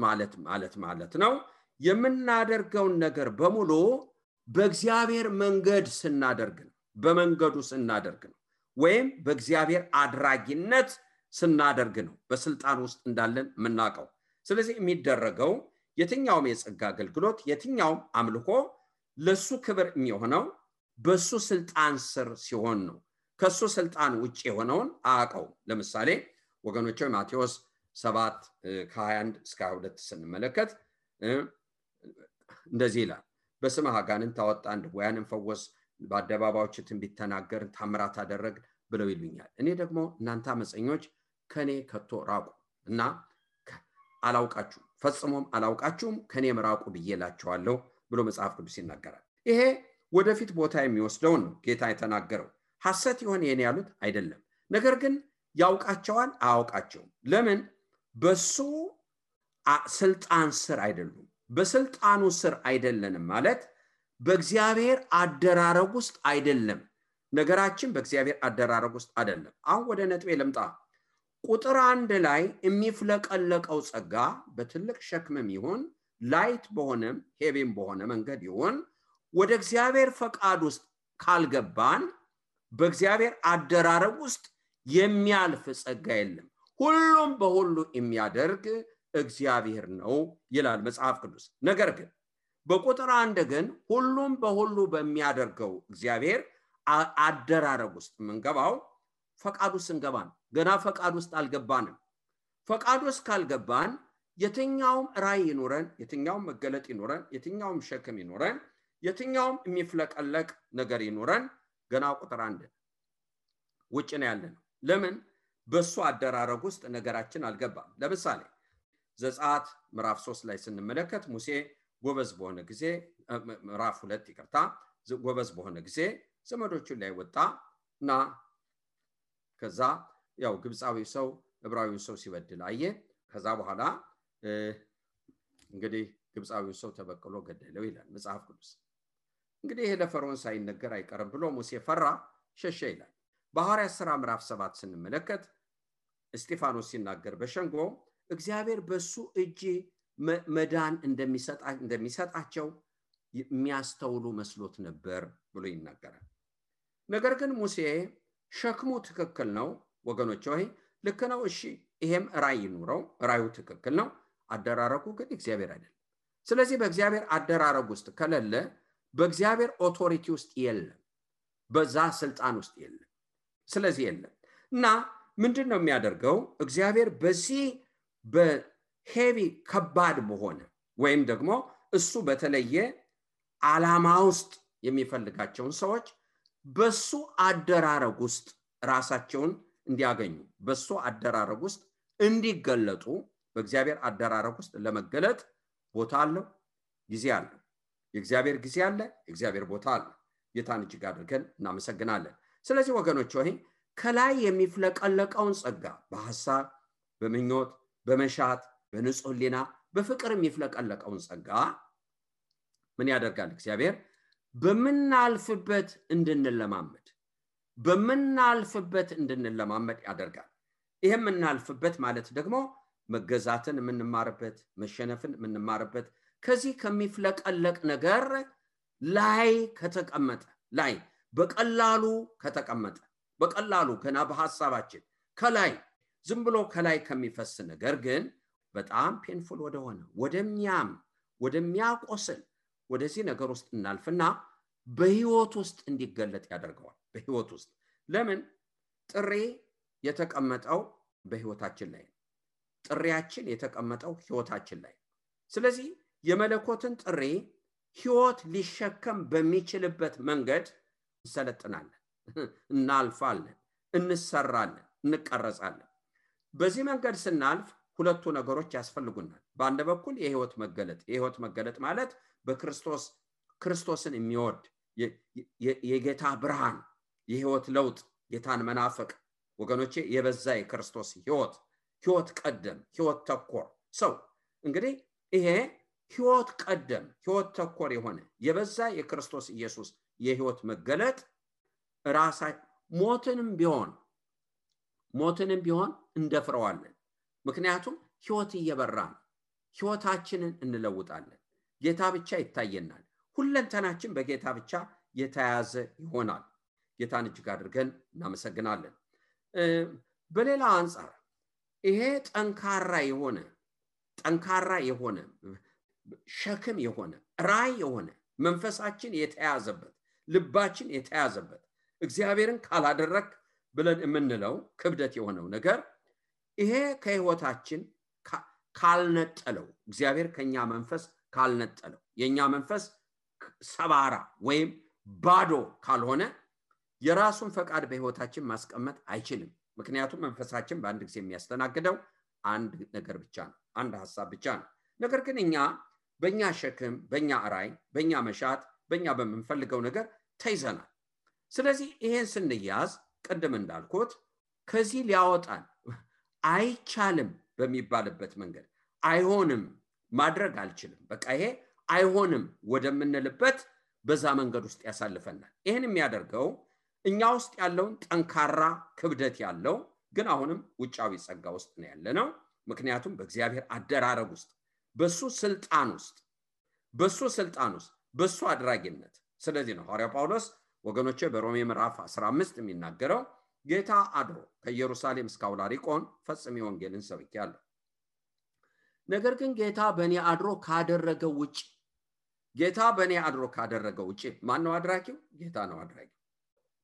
Speaker 2: ማለት ነው የምናደርገውን ነገር በሙሉ በእግዚአብሔር መንገድ ስናደርግ ነው። በመንገዱ ስናደርግ ነው፣ ወይም በእግዚአብሔር አድራጊነት ስናደርግ ነው በስልጣን ውስጥ እንዳለን የምናውቀው። ስለዚህ የሚደረገው የትኛውም የጸጋ አገልግሎት፣ የትኛውም አምልኮ ለሱ ክብር የሚሆነው በሱ ስልጣን ስር ሲሆን ነው። ከሱ ስልጣን ውጭ የሆነውን አያውቀው። ለምሳሌ ወገኖቼ ማቴዎስ 7 ከ21 እስከ 22 ስንመለከት እንደዚህ ይላል። በስምህ አጋንንት አወጣን፣ ድውያንን ፈወስ፣ በአደባባዮች ትንቢት ተናገርን፣ ታምራት አደረግን ብለው ይሉኛል። እኔ ደግሞ እናንተ አመፀኞች ከኔ ከቶ ራቁ እና አላውቃችሁም፣ ፈጽሞም አላውቃችሁም፣ ከኔም ራቁ ብዬላችኋለሁ ብሎ መጽሐፍ ቅዱስ ይናገራል። ይሄ ወደፊት ቦታ የሚወስደውን ነው ጌታ የተናገረው። ሐሰት ይሆን ይሄን ያሉት አይደለም። ነገር ግን ያውቃቸዋል አያውቃቸውም። ለምን? በሱ ስልጣን ስር አይደሉም። በስልጣኑ ስር አይደለንም ማለት በእግዚአብሔር አደራረግ ውስጥ አይደለም። ነገራችን በእግዚአብሔር አደራረግ ውስጥ አይደለም። አሁን ወደ ነጥቤ ልምጣ። ቁጥር 1 ላይ የሚፍለቀለቀው ጸጋ በትልቅ ሸክምም ይሁን ላይት በሆነም ሄቪም በሆነ መንገድ ይሁን ወደ እግዚአብሔር ፈቃድ ውስጥ ካልገባን በእግዚአብሔር አደራረግ ውስጥ የሚያልፍ ጸጋ የለም። ሁሉም በሁሉ የሚያደርግ እግዚአብሔር ነው ይላል መጽሐፍ ቅዱስ። ነገር ግን በቁጥር 1 ግን ሁሉም በሁሉ በሚያደርገው እግዚአብሔር አደራረግ ውስጥ የምንገባው ፈቃድ ውስጥ እንገባን። ገና ፈቃድ ውስጥ አልገባንም። ፈቃድ ውስጥ ካልገባን የትኛውም ራእይ ይኖረን፣ የትኛውም መገለጥ ይኖረን፣ የትኛውም ሸክም ይኖረን፣ የትኛውም የሚፍለቀለቅ ነገር ይኖረን ገና ቁጥር 1 ውጭ ነው ያለነው። ለምን? በሱ አደራረግ ውስጥ ነገራችን አልገባም። ለምሳሌ ዘጸአት ምዕራፍ 3 ላይ ስንመለከት ሙሴ ጎበዝ በሆነ ጊዜ ምዕራፍ 2 ይቅርታ ጎበዝ በሆነ ጊዜ ዘመዶቹን ላይ ወጣና ከዛ ያው ግብፃዊ ሰው ዕብራዊውን ሰው ሲበድል አየ። ከዛ በኋላ እንግዲህ ግብፃዊውን ሰው ተበቅሎ ገደለው ይላል መጽሐፍ ቅዱስ። እንግዲህ ይሄ ለፈርዖን ሳይነገር አይቀርም ብሎ ሙሴ ፈራ፣ ሸሸ ይላል። በሐዋርያት ሥራ ምዕራፍ 7 ስንመለከት እስጢፋኖስ ሲናገር በሸንጎ እግዚአብሔር በሱ እጅ መዳን እንደሚሰጣቸው የሚያስተውሉ መስሎት ነበር ብሎ ይናገራል። ነገር ግን ሙሴ ሸክሙ ትክክል ነው ወገኖች ሆይ ልክ ነው እሺ ይሄም ራእይ ኑረው ራእዩ ትክክል ነው አደራረጉ ግን እግዚአብሔር አይደለም። ስለዚህ በእግዚአብሔር አደራረግ ውስጥ ከሌለ በእግዚአብሔር ኦቶሪቲ ውስጥ የለም በዛ ስልጣን ውስጥ የለም። ስለዚህ የለም እና ምንድነው የሚያደርገው እግዚአብሔር በዚህ በሄቪ ከባድ በሆነ ወይም ደግሞ እሱ በተለየ ዓላማ ውስጥ የሚፈልጋቸውን ሰዎች በሱ አደራረግ ውስጥ ራሳቸውን እንዲያገኙ በሱ አደራረግ ውስጥ እንዲገለጡ በእግዚአብሔር አደራረግ ውስጥ ለመገለጥ ቦታ አለው ጊዜ አለው። የእግዚአብሔር ጊዜ አለ የእግዚአብሔር ቦታ አለ። ጌታን እጅግ አድርገን እናመሰግናለን። ስለዚህ ወገኖች ሆይ ከላይ የሚፍለቀለቀውን ጸጋ በሐሳብ በመኞት በመሻት በንጹህ ሕሊና በፍቅር የሚፍለቀለቀውን ጸጋ ምን ያደርጋል እግዚአብሔር በመናልፍበት እንድንለማመድ ያደርጋል። ይሄም እናልፍበት ማለት ደግሞ መገዛትን የምንማርበት መሸነፍን የምንማርበት ከዚህ ከሚፍለቀለቅ ነገር ላይ ከተቀመጠ ላይ በቀላሉ ከተቀመጠ በቀላሉ ገና በሐሳባችን ከላይ ዝም ብሎ ከላይ ከሚፈስ ነገር ግን በጣም ፔንፉል ወደሆነ ወደሚያቆስል ወደዚህ ነገር ውስጥ እናልፍና በህይወት ውስጥ እንዲገለጥ ያደርገዋል። በህይወት ውስጥ ለምን ጥሪ የተቀመጠው በህይወታችን ላይ ጥሪያችን የተቀመጠው ህይወታችን ላይ። ስለዚህ የመለኮትን ጥሪ ህይወት ሊሸከም በሚችልበት መንገድ እንሰለጥናለን እናልፋለን እንሰራለን እንቀረጻለን። በዚህ መንገድ ስናልፍ ሁለቱ ነገሮች ያስፈልጉናል። በአንድ በኩል የህይወት መገለጥ ማለት ክርስቶስን የሚወድ የጌታ ብርሃን የህይወት ለውጥ ጌታን መናፈቅ ወገኖቼ የበዛ የክርስቶስ ህይወት ቀደም ህይወት ተኮር ሰው እንግዲህ ይሄ ህይወት ቀደም ህይወት ተኮር የሆነ የበዛ የክርስቶስ ኢየሱስ የህይወት መገለጥ ራሳ ሞትንም ቢሆን እንደፍረዋለን። ምክንያቱም ህይወት እየበራን ህይወታችንን እንለውጣለን። ጌታ ብቻ ይታየናል። ሁለንተናችን በጌታ ብቻ የተያዘ ይሆናል። ጌታን እጅግ አድርገን እናመሰግናለን። በሌላ አንፃር ይሄ ጠንካራ የሆነ ሸክም የሆነ ራይ የሆነ መንፈሳችን የተያዘበት ልባችን የተያዘበት እግዚአብሔርን ካላደረክ ብለን የምንለው ክብደት የሆነው ነገር ይሄ ከህይወታችን ካልነጠለው እግዚአብሔር ከኛ መንፈስ ካልነጠለው የኛ መንፈስ ሰባራ ወይም ባዶ ካልሆነ የራሱን ፈቃድ በህይወታችን ማስቀመጥ አይችልም። ምክንያቱም መንፈሳችን በአንድ ጊዜ የሚያስተናግደው አንድ ነገር ብቻ ነው አንድ ሐሳብ ብቻ ነው። ነገር ግን እኛ በእኛ ሸክም በእኛ ራይ በእኛ መሻት በእኛ በመንፈልገው ነገር ተይዘናል። ስለዚህ ይሄን ስንያዝ ቀደም እንዳልኩት ከዚህ ሊያወጣን አይቻልም በሚባልበት መንገድ አይሆንም ማድረግ አልችልም በቃ ይሄ አይሆንም ወደምንልበት በዛ መንገድ ውስጥ ያሳልፈናል። ይሄን የሚያደርገው እኛ ውስጥ ያለውን ጠንካራ ክብደት ያለው ግን አሁንም ውጫዊ ጸጋ ውስጥ ነው ያለነው። ምክንያቱም በእግዚአብሔር አደራረግ ውስጥ በሱ ስልጣን ውስጥ በሱ አድራጊነት። ስለዚህ ነው ሐዋርያው ጳውሎስ ወገኖቼ በሮሜ ምዕራፍ 15 የሚናገረው ጌታ አድሮ ከኢየሩሳሌም እስከ አውላሪቆን ፈጽሜ ወንጌልን ሰብኬያለሁ። ነገር ግን ጌታ በእኔ አድሮ ካደረገው ውጪ ማን ነው አድራጊው? ጌታ ነው አድራጊው።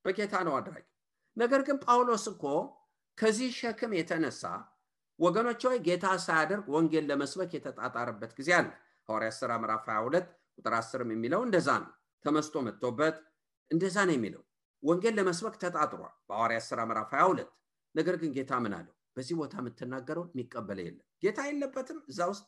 Speaker 2: በጌታ ነው አድራጊው። ነገር ግን ጳውሎስ እኮ ከዚህ ሸክም የተነሳ ወገኖች ሆይ ጌታ ሳያደርግ ወንጌል ለመስበክ የተጣጣረበት ጊዜ አለ። ሐዋርያት ሥራ ምዕራፍ 22 ቁጥር 10 የሚለው እንደዛ ነው። ተመስጦ መጥቶበት እንደዛ ነው የሚለው ወንጌል ለመስበክ ተጣጥሯል በሐዋርያት ሥራ ምዕራፍ 22። ነገር ግን ጌታ ምን አለው? በዚህ ቦታ የምትናገረው የሚቀበል የለም። ጌታ የለበትም እዛ ውስጥ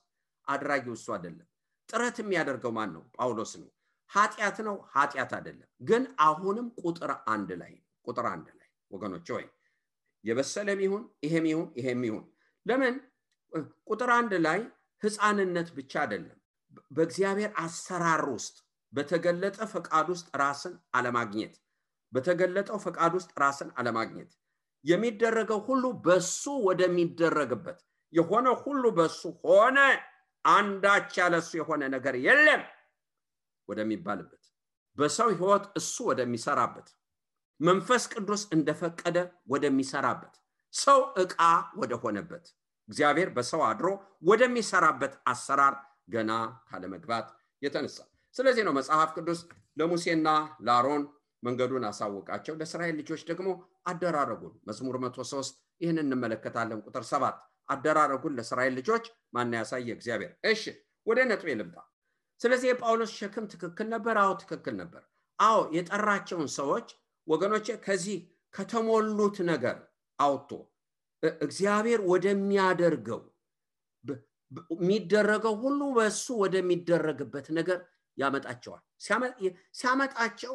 Speaker 2: አድራጊው እሱ አይደለም። ጥረት የሚያደርገው ማን ነው? ጳውሎስ ነው። ኃጢአት ነው? ኃጢአት አይደለም። ግን አሁንም ቁጥር አንድ ላይ ወገኖች ሆይ የበሰለም ይሁን ይሄም ይሁን ለምን ቁጥር አንድ ላይ ሕፃንነት ብቻ አይደለም። በእግዚአብሔር አሰራር ውስጥ በተገለጠ ፈቃድ ውስጥ ራስን አለማግኘት የሚደረገው ሁሉ በሱ ወደሚደረግበት የሆነ ሁሉ በሱ ሆነ አንዳች ያለሱ የሆነ ነገር የለም ወደሚባልበት በሰው ህይወት እሱ ወደሚሰራበት መንፈስ ቅዱስ እንደፈቀደ ወደሚሰራበት ሰው ዕቃ ወደሆነበት እግዚአብሔር በሰው አድሮ ወደሚሰራበት አሰራር ገና ካለመግባት የተነሳ ስለዚህ ነው መጽሐፍ ቅዱስ ለሙሴና ለአሮን መንገዱን አሳወቃቸው ለእስራኤል ልጆች ደግሞ አደራረጉን መዝሙር 103 ይህንን እንመለከታለን ቁጥር 7 አደራረጉን ለእስራኤል ልጆች ማን ያሳየ እግዚአብሔር እሺ ወደ ነጥቤ ልምጣ ስለዚህ የጳውሎስ ሸክም ትክክል ነበር አዎ ትክክል ነበር አዎ የጠራቸውን ሰዎች ወገኖቼ ከዚህ ከተሞሉት ነገር አውጥቶ እግዚአብሔር ወደሚያደርገው የሚደረገው ሁሉ በሱ ወደሚደረግበት ነገር ያመጣቸዋል ሲያመጣቸው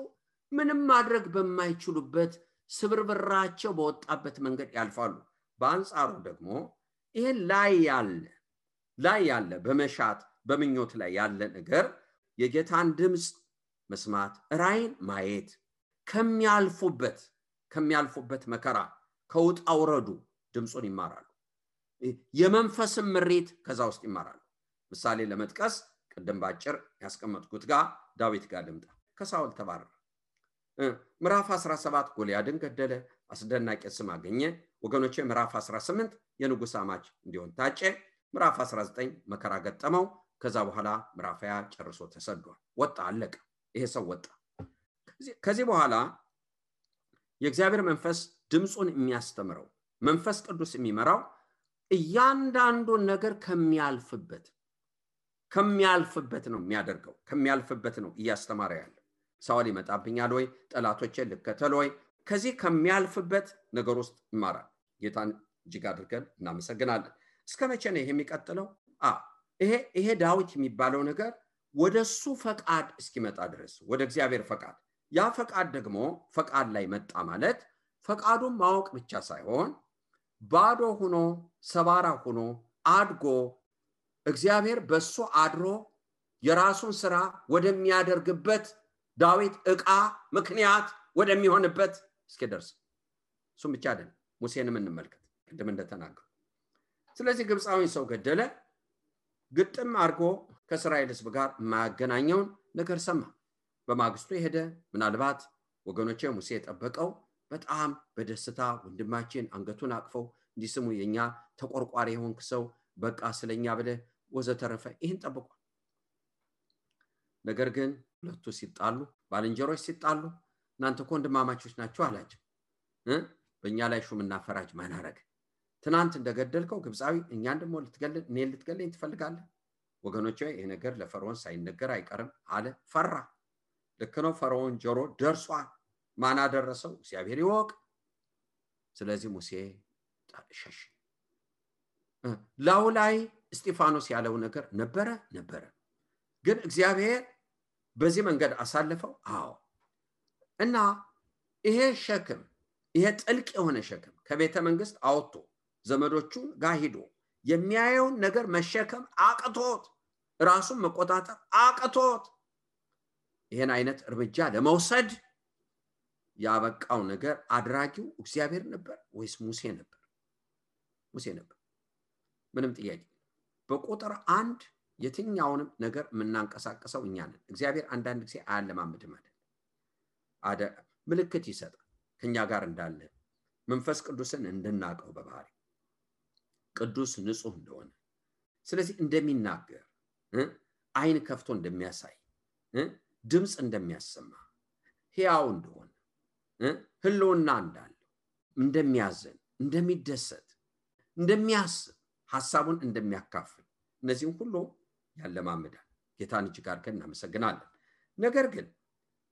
Speaker 2: ምንም ማድረግ በማይችሉበት ስብርብራቸው በወጣበት መንገድ ያልፋሉ በአንጻሩ ደግሞ ይሄ ላይ ያለ በመሻት በመኞት ላይ ያለ ነገር የጌታን ድምጽ መስማት ራይን ማየት ከሚያልፉበት መከራ ከውጣውረዱ ድምጹን ይማራሉ የመንፈስም ምሪት ከዛ ውስጥ ይማራሉ ምሳሌ ለመጥቀስ ቀደም ባጭር ያስቀመጥኩት ጋር ዳዊት ጋር ልምጣ ከሳውል ተባረረ ምዕራፍ 17 ጎልያድን ገደለ አስደናቂ ስም አገኘ ወገኖቼ ምዕራፍ 18 የንጉስ አማች እንዲሆን ታጨ ምዕራፍ 19 መከራ ገጠመው ከዛ በኋላ ምዕራፍ 20 ጨርሶ ተሰዷል ወጣ አለቀ ይሄ ሰው ወጣ ከዚህ በኋላ የእግዚአብሔር መንፈስ ድምጹን የሚያስተምረው መንፈስ ቅዱስ የሚመራው እያንዳንዱ ነገር ከሚያልፍበት ነው የሚያደርገው ከሚያልፍበት ነው እያስተማረ ያለ ሳውል ይመጣብኛል ወይ ጠላቶቼን ልከተል ወይ ከዚህ ከሚያልፍበት ነገር ውስጥ ይማራል ጌታን እጅግ አድርገን እናመሰግናለን እስከመቼ ነው ይሄ የሚቀጥለው ይሄ ዳዊት የሚባለው ነገር ወደሱ ፈቃድ እስኪመጣ ድረስ ወደ እግዚአብሔር ፈቃድ ያ ፈቃድ ደግሞ ፈቃድ ላይ መጣ ማለት ፈቃዱን ማወቅ ብቻ ሳይሆን ባዶ ሆኖ ሰባራ ሆኖ አድጎ እግዚአብሔር በሱ አድሮ የራሱን ስራ ወደሚያደርግበት ዳዊት ዕቃ ምክንያት ወደሚሆንበት እስኪደርስ እሱም ብቻ አይደለም ሙሴንም እንመልከት ቅድም እንደተናገሩ ስለዚህ ግብፃዊን ሰው ገደለ ግጥም አድርጎ ከእስራኤል ሕዝብ ጋር ማገናኘውን ነገር ሰማ በማግስቱ ሄደ ምናልባት ወገኖቼ ሙሴ የጠበቀው በጣም በደስታ ወንድማችን አንገቱን አቅፈው እንዲስሙ የኛ ተቆርቋሪ የሆንክ ሰው በቃ ስለኛ ብለ ወዘተረፈ ይህን ጠብቋል ነገር ግን ሁለቱ ሲጣሉ ባልንጀሮች ሲጣሉ እናንተ ወንድማማቾች ናችሁ አላቸው በእኛ ላይ ሹምና ፈራጅ ማን አረገ ትናንት እንደገደልከው ግብፃዊ እኛን ደግሞ ልትገለኝ ትፈልጋለህ ወገኖቼ ይሄ ነገር ለፈርዖን ሳይነገር አይቀርም አለ ፈራ ልክ ነው ፈርዖን ጆሮ ደርሷል ማን አደረሰው እግዚአብሔር ይወቅ ስለዚህ ሙሴ ሸሽ ላውላይ እስጢፋኖስ ያለው ነገር ነበረ ግን እግዚአብሔር በዚህ መንገድ አሳልፈው አዎ እና ይሄ ሸክም ይሄ ጥልቅ የሆነ ሸክም ከቤተ መንግስት አውጥቶ ዘመዶቹ ጋር ሄዶ የሚያየው ነገር መሸከም አቅቶት ራሱን መቆጣጠር አቅቶት ይሄን አይነት እርምጃ ለመውሰድ ያበቃው ነገር አድራጊው እግዚአብሔር ነበር ወይስ ሙሴ ነበር ምንም ጥያቄ በቁጥር 1 የትኛውንም ነገር ምናንቀሳቀሰው እኛ ነን እግዚአብሔር አንዳንድ ጊዜ አያለማምድም አይደል ምልክት ይሰጣል ከኛ ጋር እንዳለ መንፈስ ቅዱስን እንድናቀው በባህሪ ቅዱስ ንጹህ እንደሆነ ስለዚህ እንደሚናገር አይን ከፍቶ እንደሚያሳይ ድምጽ እንደሚያሰማ ሕያው እንደሆነ ህልውና እንዳለው እንደሚያዘን እንደሚደሰት እንደሚያስብ ሐሳቡን እንደሚያካፍል እነዚህን ሁሉ ያለማምዳል ጌታን እጅግ አድርገን እናመሰግናለን ነገር ግን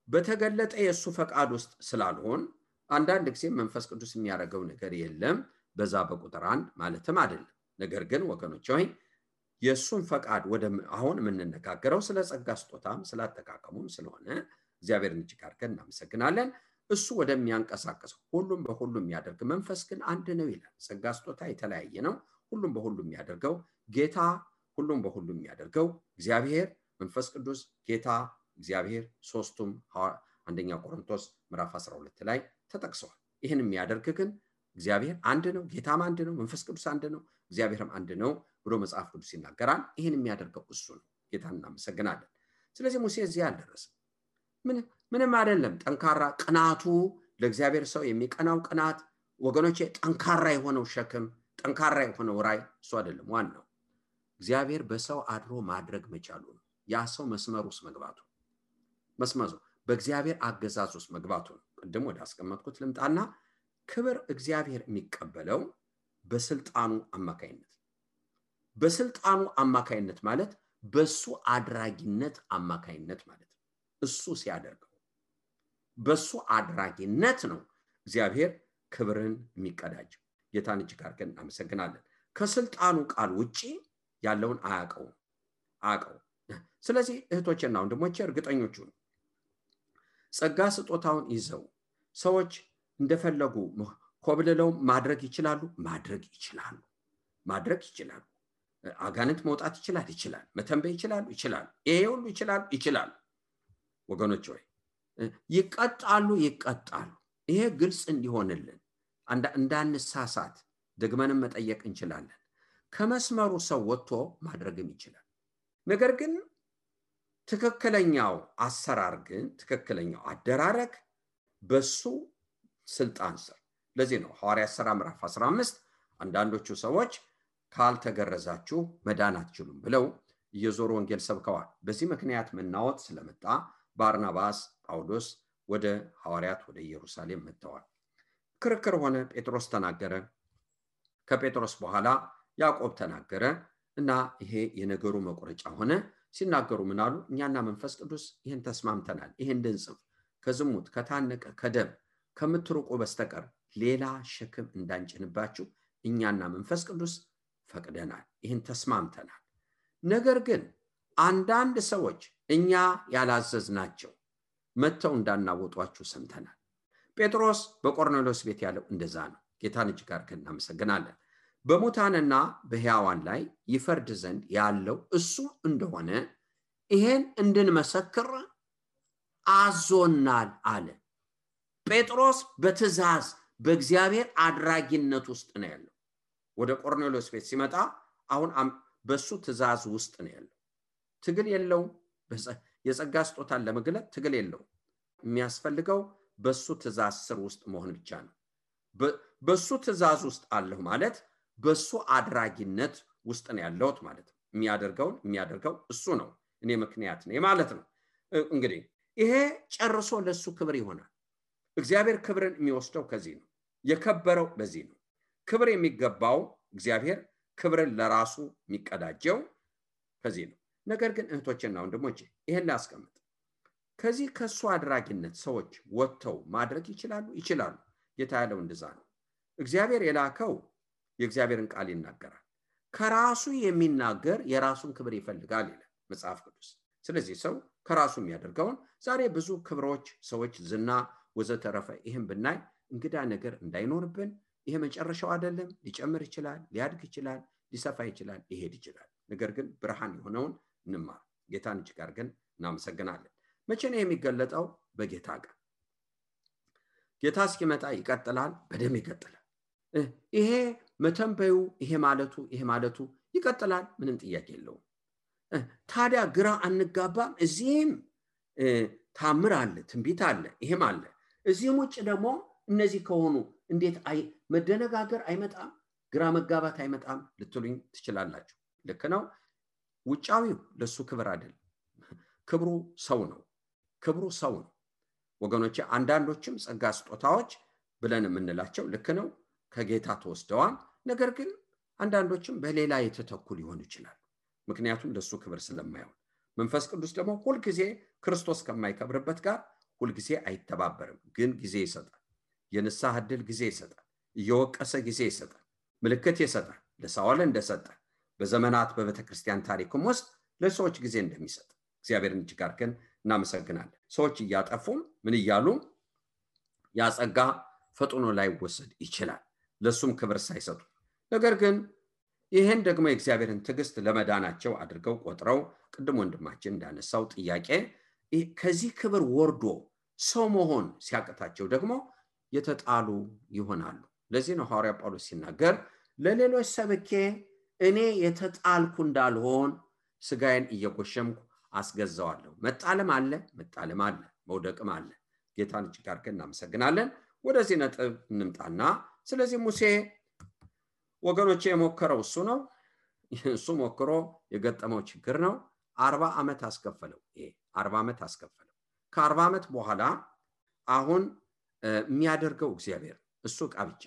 Speaker 2: በተገለጠ የሱ ፈቃድ ውስጥ ስላልሆን አንዳንድ ጊዜ መንፈስ ቅዱስ የሚያደርገው ነገር የለም በዛ በቁጥር 1 ማለትም አይደለም ነገር ግን ወገኖች ሆይ የሱን ፈቃድ ወደ አሁን የምንነጋገረው ስለ ጸጋ ስጦታም ስላተካከሙም ስለሆነ እግዚአብሔርን እጅግ አድርገን እናመሰግናለን እሱ ወደሚያንቀሳቀስ ሁሉም በሁሉም የሚያደርግ መንፈስ ግን አንድ ነው ይላል ጸጋ ስጦታ የተለያየ ነው ሁሉም በሁሉም የሚያደርገው ጌታ ሁሉም በሁሉም የሚያደርገው እግዚአብሔር መንፈስ ቅዱስ ጌታ እግዚአብሔር ሶስቱም አንደኛ ቆሮንቶስ ምዕራፍ 12 ላይ ተጠቅሰዋል ይሄን የሚያደርግ ግን እግዚአብሔር አንድ ነው፣ ጌታም አንድ ነው፣ መንፈስ ቅዱስ አንድ ነው፣ እግዚአብሔርም አንድ ነው ብሎ መጽሐፍ ቅዱስ ይናገራል። ይህን የሚያደርገው እሱ ነው። ጌታን እናመሰግናለን። ስለዚህ ሙሴ እዚህ አልደረሰም። ምንም አይደለም። ጠንካራ ቅናቱ ለእግዚአብሔር ሰው የሚቀናው ቅናት ወገኖቼ፣ ጠንካራ የሆነው ሸክም፣ ጠንካራ የሆነው ራይ እሱ አይደለም። ዋናው እግዚአብሔር በሰው አድሮ ማድረግ መቻሉ ነው። ያ ሰው መስመር ውስጥ መግባቱ፣ መስመሩ በእግዚአብሔር አገዛዝ ውስጥ መግባቱ ነው። ቅድም ወደ አስቀመጥኩት ልምጣና ክብር እግዚአብሔር የሚቀበለው በስልጣኑ አማካይነት፣ በስልጣኑ አማካይነት ማለት በሱ አድራጊነት አማካይነት ማለት ነው። እሱ ሲያደርገው በሱ አድራጊነት ነው እግዚአብሔር ክብርን የሚቀዳጀው። ጌታን እጅግ አድርገን እናመሰግናለን። ከስልጣኑ ቃል ውጪ ያለውን አያውቀው። ስለዚህ እህቶችና ወንድሞቼ እርግጠኞቹ ጸጋ ስጦታውን ይዘው ሰዎች እንደፈለጉ ኮብልለው ማድረግ ይችላሉ። አጋንንት መውጣት ይችላል። መተንበይ ይችላል። ይሄ ሁሉ ይችላል። ወገኖች ሆይ ይቀጣሉ። ይሄ ግልጽ እንዲሆንልን እንዳንሳሳት ደግመንም መጠየቅ እንችላለን። ከመስመሩ ሰው ወጥቶ ማድረግም ይችላል። ነገር ግን ትክክለኛው አሰራር ግን ትክክለኛው አደራረግ በሱ ስልጣን ስር። ለዚህ ነው ሐዋርያት ሥራ ምዕራፍ 15 አንዳንዶቹ ሰዎች ካልተገረዛችሁ መዳን አትችሉም ብለው እየዞሩ ወንጌል ሰብከዋል። በዚህ ምክንያት መናወጥ ስለመጣ ባርናባስ ጳውሎስ ወደ ሐዋርያት ወደ ኢየሩሳሌም መጥተዋል። ክርክር ሆነ። ጴጥሮስ ተናገረ። ከጴጥሮስ በኋላ ያዕቆብ ተናገረ እና ይሄ የነገሩ መቆረጫ ሆነ። ሲናገሩ ምን አሉ? እኛና መንፈስ ቅዱስ ይሄን ተስማምተናል። ይሄን እንድንጽፍ ከዝሙት ከታነቀ ከደም ከምትርቁ በስተቀር ሌላ ሸክም እንዳንጭንባችሁ እኛና መንፈስ ቅዱስ ፈቅደናል። ይሄን ተስማምተናል። ነገር ግን አንዳንድ ሰዎች እኛ ያላዘዝናቸው መተው እንዳናወጧችሁ ሰምተናል። ጴጥሮስ በቆርኔሌዎስ ቤት ያለው እንደዛ ነው። ጌታን እጅግ አድርገን እናመሰግናለን። በሙታንና በሕያዋን ላይ ይፈርድ ዘንድ ያለው እሱ እንደሆነ ይሄን እንድንመሰክር አዞናል አለ። ጴጥሮስ በትእዛዝ በእግዚአብሔር አድራጊነት ውስጥ ነው ያለው። ወደ ቆርኔሌዎስ ቤት ሲመጣ አሁን በሱ ትእዛዝ ውስጥ ነው ያለው። ትግል የለው። የጸጋ ስጦታን ለመግለጥ ትግል የለው። የሚያስፈልገው በሱ ትእዛዝ ስር ውስጥ መሆን ብቻ ነው። በሱ ትእዛዝ ውስጥ አለሁ ማለት በሱ አድራጊነት ውስጥ ነው ያለሁት ማለት ነው። የሚያደርገው እሱ ነው። እኔ ምክንያት ነኝ ማለት ነው። እንግዲህ ይሄ ጨርሶ ለሱ ክብር ይሆናል። እግዚአብሔር ክብርን የሚወስደው ከዚህ ነው። የከበረው በዚህ ነው። ክብር የሚገባው እግዚአብሔር ክብርን ለራሱ የሚቀዳጀው ከዚህ ነው። ነገር ግን እህቶችና ወንድሞቼ ይሄን ላስቀምጥ። ከዚህ ከሱ አድራጊነት ሰዎች ወጥተው ማድረግ ይችላሉ። ጌታ ያለው እንደዛ ነው። እግዚአብሔር የላከው የእግዚአብሔርን ቃል ይናገራል። ከራሱ የሚናገር የራሱን ክብር ይፈልጋል ይላል መጽሐፍ ቅዱስ። ስለዚህ ሰው ከራሱ የሚያደርገውን ዛሬ ብዙ ክብሮች፣ ሰዎች፣ ዝና ወዘተረፈ ይሄን ብናይ እንግዳ ነገር እንዳይኖርብን። ይሄ መጨረሻው አይደለም። ሊጨምር ይችላል፣ ሊያድግ ይችላል፣ ሊሰፋ ይችላል፣ ሊሄድ ይችላል። ነገር ግን ብርሃን የሆነውን እንማር። ጌታን እጅግ አድርገን እናመሰግናለን። መቼ ነው የሚገለጠው? በጌታ ቀን። ጌታ እስኪመጣ ይቀጥላል፣ በደም ይቀጥላል። ይሄ መተንበዩ ይሄ ማለቱ ይቀጥላል። ምንም ጥያቄ የለውም። ታዲያ ግራ አንጋባም። እዚህም ታምር አለ፣ ትንቢት አለ፣ ይሄም አለ። እዚህም ውጭ ደግሞ እነዚህ ከሆኑ እንዴት መደነጋገር አይመጣም? ግራ መጋባት አይመጣም ልትሉኝ ትችላላችሁ። ልክ ነው። ውጫዊው ለሱ ክብር አይደለም። ክብሩ ሰው ነው። ወገኖቼ አንዳንዶችም ጸጋ ስጦታዎች ብለን የምንላቸው ልክ ነው፣ ከጌታ ተወስደዋል። ነገር ግን አንዳንዶችም በሌላ የተተኩ ሊሆኑ ይችላል። ምክንያቱም ለሱ ክብር ስለማይሆን። መንፈስ ቅዱስ ደግሞ ሁልጊዜ ክርስቶስ ከማይከብርበት ጋር ሁልጊዜ አይተባበርም። ግን ጊዜ ይሰጣል። የንስሐ ዕድል ጊዜ ይሰጣል። እየወቀሰ ጊዜ ይሰጣል። ምልክት ይሰጣል። ለሳኦል እንደሰጠ በዘመናት በቤተክርስቲያን ታሪክም ውስጥ ለሰዎች ጊዜ እንደሚሰጥ እግዚአብሔርን እጅግ አድርገን እናመሰግናለን። ሰዎች እያጠፉም ምን እያሉ ያጸጋ ፈጥኖ ላይወሰድ ይችላል፣ ለሱም ክብር ሳይሰጡ። ነገር ግን ይሄን ደግሞ የእግዚአብሔርን ትዕግስት ለመዳናቸው አድርገው ቆጥረው ቅድም ወንድማችን እንዳነሳው ጥያቄ ከዚህ ክብር ወርዶ ሰው መሆን ሲያቅታቸው ደግሞ የተጣሉ ይሆናሉ። ለዚህ ነው ሐዋርያ ጳውሎስ ሲናገር ለሌሎች ሰብኬ እኔ የተጣልኩ እንዳልሆን ስጋዬን እየጎሸምኩ አስገዛዋለሁ። መጣለም አለ፣ መውደቅም አለ። ጌታን እጅግ አድርገን እናመሰግናለን። ወደዚህ ነጥብ እንምጣና ስለዚህ ሙሴ ወገኖቼ የሞከረው እሱ ነው። እሱ ሞክሮ የገጠመው ችግር ነው። 40 ዓመት አስከፈለው። 40 ዓመት አስከፈለው። ከ40 ዓመት በኋላ አሁን የሚያደርገው እግዚአብሔር እሱ ዕቃ ብቻ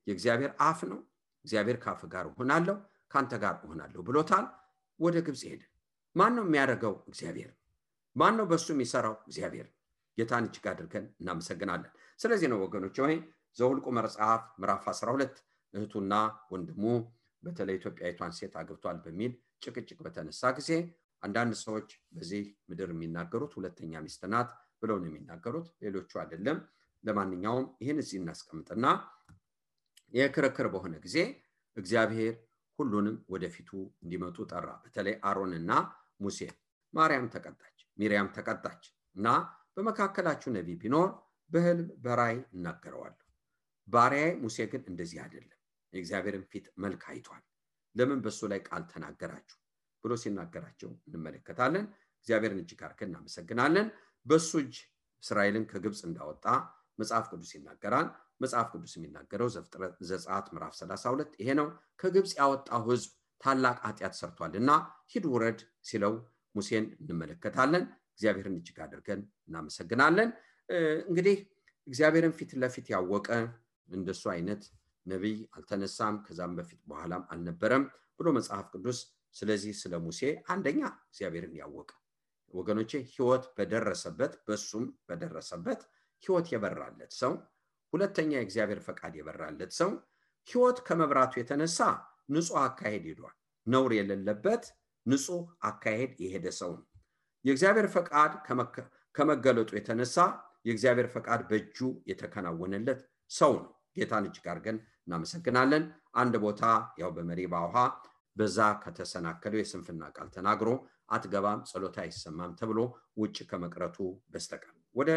Speaker 2: የእግዚአብሔር አፍ ነው። እግዚአብሔር ካፍ ጋር ሆናለሁ ካንተ ጋር ሆናለሁ ብሎታል። ወደ ግብጽ ሄደ። ማን ነው የሚያደርገው? እግዚአብሔር። ማን ነው በሱ የሚሰራው? እግዚአብሔር። ጌታን እጅግ አድርገን እናመሰግናለን። ስለዚህ ነው ወገኖች ሆይ ዘኍልቍ መጽሐፍ ምዕራፍ 12 እህቱና ወንድሙ በተለይ ኢትዮጵያዊቷን ሴት አግብቷል በሚል ጭቅጭቅ በተነሳ ጊዜ አንዳንድ ሰዎች በዚህ ምድር የሚናገሩት ሁለተኛ ሚስት ናት ብለው ነው የሚናገሩት፣ ሌሎቹ አይደለም። ለማንኛውም ይህን እዚህ እናስቀምጥና የክርክር በሆነ ጊዜ እግዚአብሔር ሁሉንም ወደፊቱ እንዲመጡ ጠራ። በተለይ አሮንና ሙሴ። ሚሪያም ተቀጣች እና በመካከላችሁ ነቢይ ቢኖር በህልም በራእይ እናገረዋለሁ። ባሪያዬ ሙሴ ግን እንደዚህ አይደለም፣ የእግዚአብሔርን ፊት መልክ አይቷል። ለምን በሱ ላይ ቃል ተናገራችሁ ብሎ ሲናገራቸው እንመለከታለን። እግዚአብሔርን እጅግ አድርገን እናመሰግናለን። በሱ እጅ እስራኤልን ከግብጽ እንዳወጣ መጽሐፍ ቅዱስ ይናገራል። መጽሐፍ ቅዱስ የሚናገረው ዘጸአት ምዕራፍ 32 ይሄ ነው። ከግብጽ ያወጣው ህዝብ ታላቅ ኃጢአት ሰርቷልና ሂድ ውረድ ሲለው ሙሴን እንመለከታለን። እግዚአብሔርን እጅግ አድርገን እናመሰግናለን። እንግዲህ እግዚአብሔርን ፊት ለፊት ያወቀ እንደሱ አይነት ነብይ አልተነሳም፣ ከዛም በፊት በኋላም አልነበረም ብሎ መጽሐፍ ቅዱስ ስለዚህ ስለ ሙሴ አንደኛ እግዚአብሔርን ያወቀ ወገኖቼ ህይወት በደረሰበት በሱም በደረሰበት ህይወት የበራለት ሰው፣ ሁለተኛ የእግዚአብሔር ፈቃድ የበራለት ሰው ህይወት ከመብራቱ የተነሳ ንጹህ አካሄድ ሄዷል። ነውር የሌለበት ንጹህ አካሄድ የሄደ ሰው ነው። የእግዚአብሔር ፈቃድ ከመገለጡ የተነሳ የእግዚአብሔር ፈቃድ በእጁ የተከናወነለት ሰው ነው። ጌታን እጅግ አድርገን እናመሰግናለን። አንድ ቦታ ያው በመሪባ ውሃ በዛ ከተሰናከለው የስንፍና ቃል ተናግሮ አትገባም ጸሎታ አይሰማም ተብሎ ውጭ ከመቅረቱ በስተቀር ወደ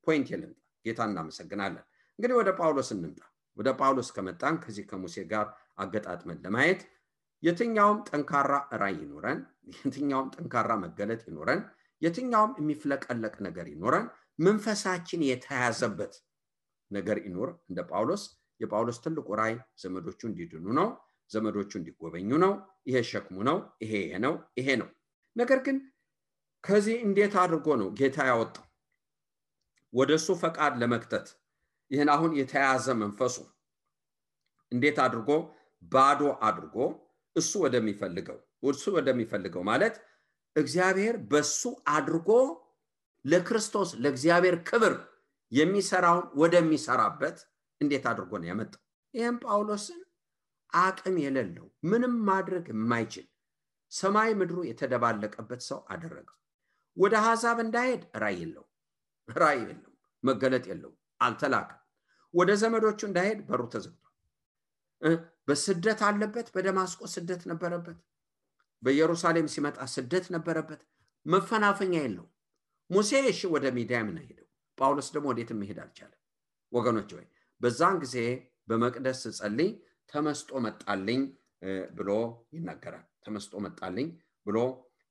Speaker 2: ፖይንት የለምጣ። ጌታን እናመሰግናለን። እንግዲህ ወደ ጳውሎስ እንምጣ። ወደ ጳውሎስ ከመጣን ከዚህ ከሙሴ ጋር አገጣጥመን ለማየት የትኛውም ጠንካራ ራእይ ይኖረን፣ የትኛውም ጠንካራ መገለጥ ይኖረን፣ የትኛውም የሚፍለቀለቅ ነገር ይኖረን፣ መንፈሳችን የተያዘበት ነገር ይኖር እንደ ጳውሎስ። የጳውሎስ ትልቁ ራእይ ዘመዶቹ እንዲድኑ ነው፣ ዘመዶቹ እንዲጎበኙ ነው። ይሄ ሸክሙ ነው፣ ይሄ ነው። ነገር ግን ከዚህ እንዴት አድርጎ ነው ጌታ ያወጣው ወደሱ ፈቃድ ለመክተት? ይሄን አሁን የተያዘ መንፈሱ እንዴት አድርጎ ባዶ አድርጎ እሱ ወደሚፈልገው ማለት እግዚአብሔር በሱ አድርጎ ለክርስቶስ ለእግዚአብሔር ክብር የሚሰራውን ወደሚሰራበት እንዴት አድርጎ ነው ያመጣው? ይሄን ጳውሎስን አቅም የሌለው ምንም ማድረግ የማይችል ሰማይ ምድሩ የተደባለቀበት ሰው አደረገው። ወደ አሕዛብ እንዳይሄድ ራእይ የለው፣ መገለጥ የለው፣ አልተላከም። ወደ ዘመዶቹ እንዳይሄድ በሩ ተዘግቷል። በስደት አለበት። በደማስቆ ስደት ነበረበት። በኢየሩሳሌም ሲመጣ ስደት ነበረበት። መፈናፈኛ የለው። ሙሴ እሺ ወደ ሚዲያም ነው ሄደው፣ ጳውሎስ ደግሞ ወዴትም መሄድ አልቻለም። ወገኖች ሆይ በዛን ጊዜ በመቅደስ ጸልይ ተመስጦ መጣልኝ ብሎ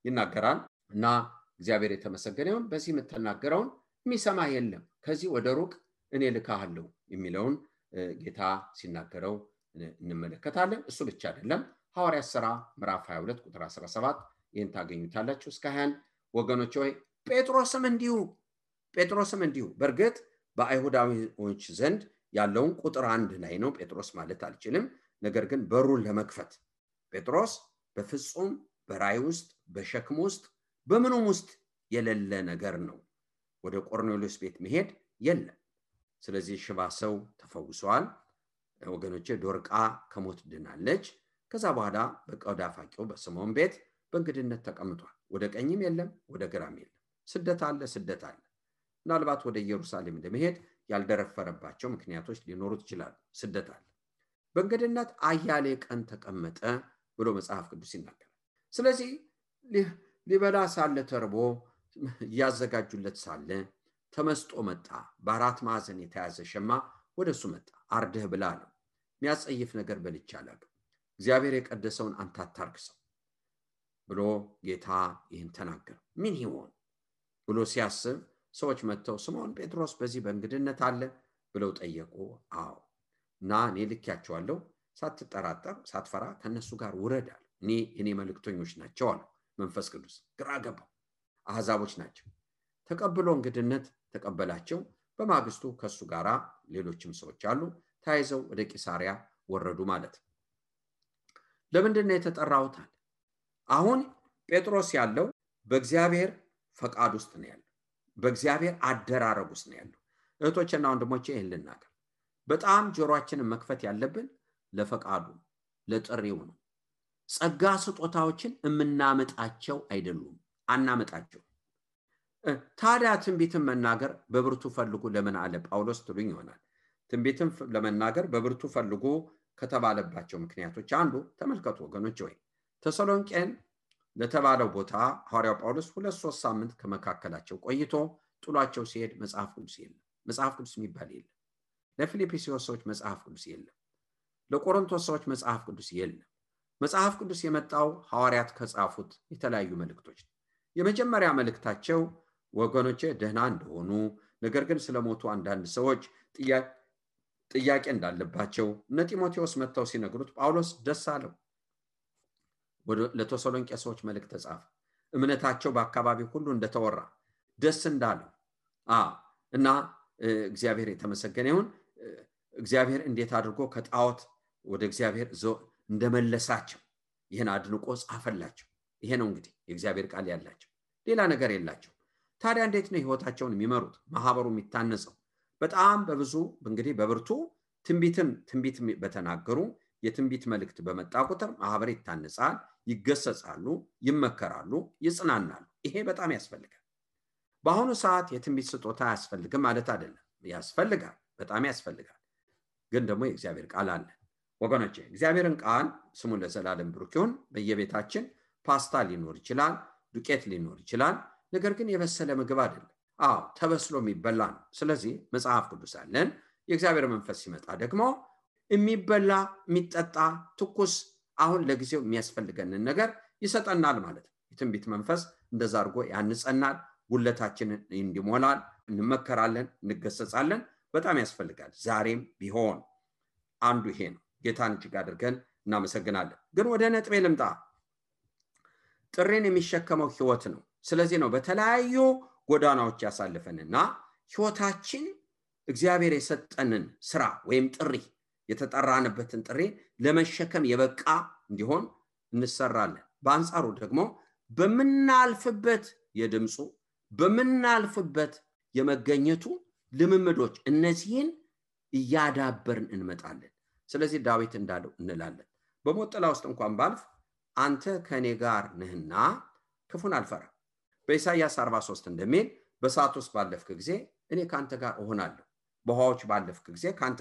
Speaker 2: ይናገራል። እና እግዚአብሔር የተመሰገነ ይሁን። በዚህ የምትናገረውን የሚሰማ የለም፣ ከዚህ ወደ ሩቅ እኔ ልካሃለሁ የሚለውን ጌታ ሲናገረው እንመለከታለን። እሱ ብቻ አይደለም። ሐዋርያት ሥራ ምዕራፍ 22 ቁጥር 17 ይህን ታገኙታላችሁ እስከ 20። ወገኖች ሆይ ጴጥሮስም እንዲሁ በእርግጥ በአይሁዳዊዎች ዘንድ ያለውን ቁጥር 1 ላይ ነው ጴጥሮስ ማለት አልችልም። ነገር ግን በሩን ለመክፈት ጴጥሮስ በፍጹም በራእይ ውስጥ በሸክም ውስጥ በምንም ውስጥ የሌለ ነገር ነው። ወደ ቆርኔሌዎስ ቤት መሄድ የለም። ስለዚህ ሽባ ሰው ተፈውሷል። ወገኖቼ ዶርቃ ከሞት ድናለች። ከዛ በኋላ በቆዳ ፋቂው በስምዖን ቤት በእንግድነት ተቀምጧል። ወደ ቀኝም የለም ወደ ግራም የለም። ስደት አለ። ምናልባት ወደ ኢየሩሳሌም ለመሄድ ያልደረፈረባቸው ምክንያቶች ሊኖሩት ይችላሉ። ስደት አለ። በእንግድነት አያሌ ቀን ተቀመጠ ብሎ መጽሐፍ ቅዱስ ይናገራል። ስለዚህ ሊበላ ሳለ ተርቦ ያዘጋጁለት ሳለ ተመስጦ መጣ። በአራት ማዕዘን የተያዘ ሸማ ወደሱ መጣ። አርደህ ብላ ነው። የሚያጸይፍ ነገር በልቼ አላውቅም። እግዚአብሔር የቀደሰውን አንተ አታርክሰው ብሎ ጌታ ይህን ተናገረ። ምን ይሆን ብሎ ሲያስብ ሰዎች መጥተው ስምዖን ጴጥሮስ በዚህ በእንግድነት አለ ብለው ጠየቁ። አዎ እና እኔ ልኬያቸዋለሁ፣ ሳትጠራጠር ሳትፈራ ከነሱ ጋር ውረድ አለ። እኔ መልእክተኞች ናቸው አለ መንፈስ ቅዱስ። ግራ ገባው። አሕዛቦች ናቸው። ተቀብሎ እንግድነት ተቀበላቸው። በማግስቱ ከሱ ጋራ ሌሎችም ሰዎች አሉ። ታይዘው ወደ ቂሳሪያ ወረዱ ማለት ነው። ለምንድን ነው የተጠራሁት አለ። አሁን ጴጥሮስ ያለው በእግዚአብሔር ፈቃድ ውስጥ ነው ያለው። በእግዚአብሔር አደራረግ ውስጥ ነው ያለው። እህቶችና ወንድሞቼ ይህን ልናገር፣ በጣም ጆሮአችንን መክፈት ያለብን ለፈቃዱ ለጥሪው ነው። ጸጋ ስጦታዎችን የምናመጣቸው አይደሉም፣ አናመጣቸው። ታዲያ ትንቢትን መናገር በብርቱ ፈልጉ ለምን አለ ጳውሎስ ትሉኝ ይሆናል። ትንቢትን ለመናገር በብርቱ ፈልጉ ከተባለባቸው ምክንያቶች አንዱ ተመልከቱ ወገኖች፣ ወይ ተሰሎንቄን ለተባለው ቦታ ሐዋርያው ጳውሎስ 2-3 ሳምንት ከመካከላቸው ቆይቶ ጥሏቸው ሲሄድ መጽሐፍ ቅዱስ የለም። መጽሐፍ ቅዱስ የሚባል የለም። ለፊልጵስዩስ ሰዎች መጽሐፍ ቅዱስ የለም። ለቆሮንቶስ ሰዎች መጽሐፍ ቅዱስ የለም። መጽሐፍ ቅዱስ የመጣው ሐዋርያት ከጻፉት የተለያዩ መልእክቶች ነው። የመጀመሪያ መልእክታቸው ወገኖቼ ደህና እንደሆኑ፣ ነገር ግን ስለሞቱ አንዳንድ ሰዎች ጥያቄ እንዳለባቸው እነ ጢሞቴዎስ መጥተው ሲነግሩት ጳውሎስ ደስ አለው። ለተሰሎንቄ ሰዎች መልእክት ተጻፈ። እምነታቸው በአካባቢው ሁሉ እንደተወራ ደስ እንዳለው እና እግዚአብሔር የተመሰገነ ይሁን። እግዚአብሔር እንዴት አድርጎ ከጣዖት ወደ እግዚአብሔር እንደመለሳቸው ይህን አድንቆ ጻፈላቸው። ይሄ ነው እንግዲህ የእግዚአብሔር ቃል ያላቸው፣ ሌላ ነገር የላቸው። ታዲያ እንዴት ነው ህይወታቸውን የሚመሩት? ማህበሩ የሚታነጸው በጣም በብዙ እንግዲህ በብርቱ ትንቢት በተናገሩ የትንቢት መልእክት በመጣ ቁጥር ማህበር ይታነጻል፣ ይገሰጻሉ፣ ይመከራሉ፣ ይጽናናሉ። ይሄ በጣም ያስፈልጋል። በአሁኑ ሰዓት የትንቢት ስጦታ ያስፈልግም ማለት አይደለም፣ ያስፈልጋል፣ በጣም ያስፈልጋል። ግን ደግሞ የእግዚአብሔር ቃል አለ ወገኖቼ። እግዚአብሔርን ቃል ስሙ ለዘላለም ብሩክ ይሁን። በየቤታችን ፓስታ ሊኖር ይችላል፣ ዱቄት ሊኖር ይችላል። ነገር ግን የበሰለ ምግብ አይደለም። ተበስሎ የሚበላ ነው። ስለዚህ መጽሐፍ ቅዱስ አለን። የእግዚአብሔር መንፈስ ሲመጣ ደግሞ የሚበላ የሚጠጣ ትኩስ አሁን ለጊዜው የሚያስፈልገንን ነገር ይሰጠናል ማለት ነው። የትንቢት መንፈስ እንደዛ አድርጎ ያንጸናል፣ ጉለታችንን እንዲሞላል፣ እንመከራለን፣ እንገሰጻለን። በጣም ያስፈልጋል። ዛሬም ቢሆን አንዱ ይሄ ነው። ጌታን እጅግ አድርገን እናመሰግናለን። ግን ወደ ነጥቤ ልምጣ። ጥሪን የሚሸከመው ህይወት ነው። ስለዚህ ነው በተለያዩ ጎዳናዎች ያሳልፈንና ህይወታችን እግዚአብሔር የሰጠንን ስራ ወይም ጥሪ የተጠራንበትን ጥሪ ለመሸከም የበቃ እንዲሆን እንሰራለን። በአንጻሩ ደግሞ በመናልፍበት የድምጹ በመናልፍበት የመገኘቱ ልምምዶች እነዚህን እያዳበርን እንመጣለን። ስለዚህ ዳዊት እንዳለው እንላለን፣ በሞት ጥላ ውስጥ እንኳን ባልፍ አንተ ከኔ ጋር ነህና ክፉን አልፈራም። በኢሳይያስ 43 እንደሚል በእሳት ውስጥ ባለፍክ ጊዜ እኔ ካንተ ጋር እሆናለሁ፣ በውሃዎች ባለፍክ ጊዜ ካንተ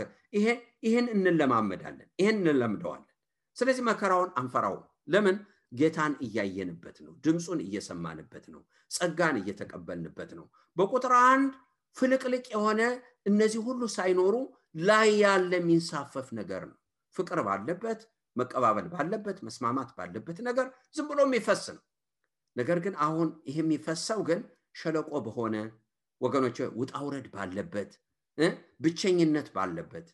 Speaker 2: ይሄን እንለማመዳለን፣ ይሄን እንለምደዋለን። ስለዚህ መከራውን አንፈራውም። ለምን? ጌታን እያየንበት ነው፣ ድምጹን እየሰማንበት ነው፣ ጸጋን እየተቀበልንበት ነው። በቁጥር 1 ፍልቅልቅ የሆነ እነዚህ ሁሉ ሳይኖሩ ላይ ያለ የሚንሳፈፍ ነገር ነው። ፍቅር ባለበት፣ መቀባበል ባለበት፣ መስማማት ባለበት ነገር ዝም ብሎ የሚፈስ ነው። ነገር ግን አሁን ይሄ የሚፈሰው ግን ሸለቆ በሆነ ወገኖች ውጣውረድ ባለበት ብቸኝነት ባለበት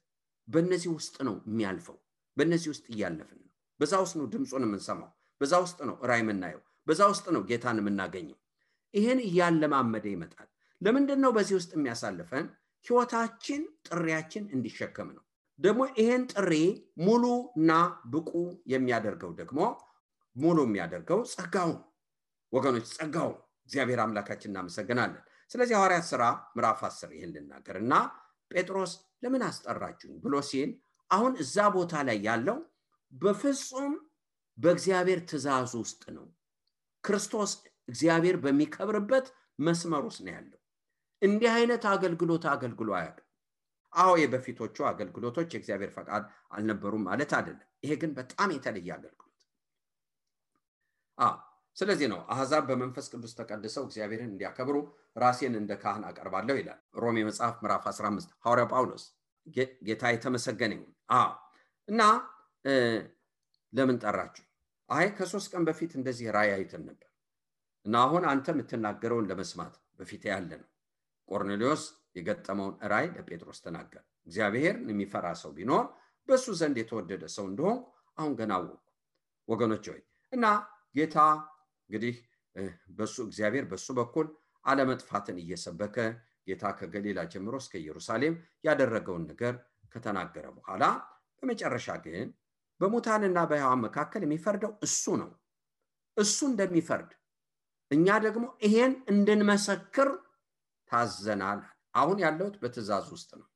Speaker 2: በእነዚህ ውስጥ ነው የሚያልፈው። በእነዚህ ውስጥ እያለፍን ነው። በዛ ውስጥ ነው ድምጹን የምንሰማው። በዛ ውስጥ ነው ራእይ የምናየው። በዛ ውስጥ ነው ጌታን የምናገኘው። ይሄን እያለማመደ ይመጣል። ለምንድን ነው በዚህ ውስጥ የሚያሳልፈን? ህይወታችን ጥሪያችን እንዲሸከም ነው። ደግሞ ይሄን ጥሪ ሙሉና ብቁ የሚያደርገው ደግሞ ሙሉ የሚያደርገው ጸጋው ወገኖች፣ ጸጋው እግዚአብሔር አምላካችን እናመሰግናለን። ስለዚህ ሐዋርያት ሥራ ምዕራፍ 10 ይሄን ልናገርና ጴጥሮስ ለምን አስጠራችሁኝ ብሎ ሲል አሁን እዛ ቦታ ላይ ያለው በፍጹም በእግዚአብሔር ትእዛዝ ውስጥ ነው። ክርስቶስ እግዚአብሔር በሚከብርበት መስመር ውስጥ ነው ያለው። እንዲህ አይነት አገልግሎት አገልግሎ አያውቅም። የበፊቶቹ አገልግሎቶች የእግዚአብሔር ፈቃድ አልነበሩም ማለት አይደለም። ይሄ ግን በጣም የተለየ አገልግሎት። ስለዚህ ነው አሕዛብ በመንፈስ ቅዱስ ተቀድሰው እግዚአብሔርን እንዲያከብሩ ራሴን እንደ ካህን አቀርባለሁ ይላል ሮሜ መጽሐፍ ምዕራፍ 15 ሐዋርያው ጳውሎስ። ጌታ የተመሰገነ ይሁን። እና ለምን ጠራችሁ? አይ ከ3 ቀን በፊት እንደዚህ ራእይ አይተን ነበር እና አሁን አንተ የምትናገረውን ለመስማት በፊት ያለ ነው። ቆርኔሌዎስ የገጠመውን ራእይ ለጴጥሮስ ተናገረ። እግዚአብሔርን የሚፈራ ሰው ቢኖር በሱ ዘንድ የተወደደ ሰው እንደሆን አሁን ገና አወቅሁ። ወገኖች ሆይ እና ጌታ እንግዲህ እግዚአብሔር በሱ በኩል አለመጥፋትን እየሰበከ ጌታ ከገሊላ ጀምሮ እስከ ኢየሩሳሌም ያደረገውን ነገር ከተናገረ በኋላ በመጨረሻ ግን በሙታንና በሕያዋን መካከል የሚፈርደው እሱ ነው። እሱ እንደሚፈርድ እኛ ደግሞ ይሄን እንድንመሰክር ታዘናል። አሁን ያለሁት በትእዛዝ ውስጥ ነው።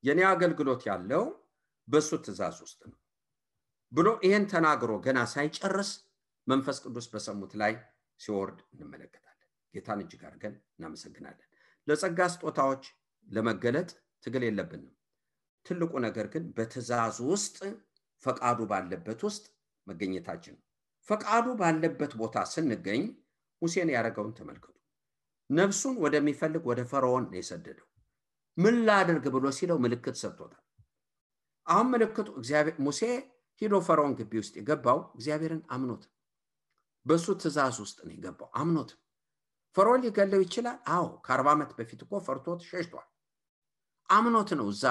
Speaker 2: የኔ አገልግሎት ያለው በሱ ትእዛዝ ውስጥ ነው ብሎ ይሄን ተናግሮ ገና ሳይጨርስ መንፈስ ቅዱስ በሰሙት ላይ ሲወርድ እንመለከታለን። ጌታን እጅግ አድርገን እናመሰግናለን። ለጸጋ ስጦታዎች ለመገለጥ ትግል የለብንም። ትልቁ ነገር ግን በትእዛዝ ውስጥ ፈቃዱ ባለበት ውስጥ መገኘታችን። ፈቃዱ ባለበት ቦታ ስንገኝ ሙሴን ያደረገውን ተመልከቱ። ነፍሱን ወደሚፈልግ ወደ ፈርዖን ነው የሰደደው። ምን ላድርግ ብሎ ሲለው ምልክት ሰጥቶታል። አሁን ምልክቱ እግዚአብሔር ሙሴ ሄዶ ፈርዖን ግቢ ውስጥ የገባው እግዚአብሔርን አምኖት በሱ ትእዛዝ ውስጥ ነው የገባው አምኖት። ፈርዖን ሊገለው ይችላል። አዎ ከ40 ዓመት በፊት እኮ ፈርቶት ሸሽቷል። አምኖት ነው እዛ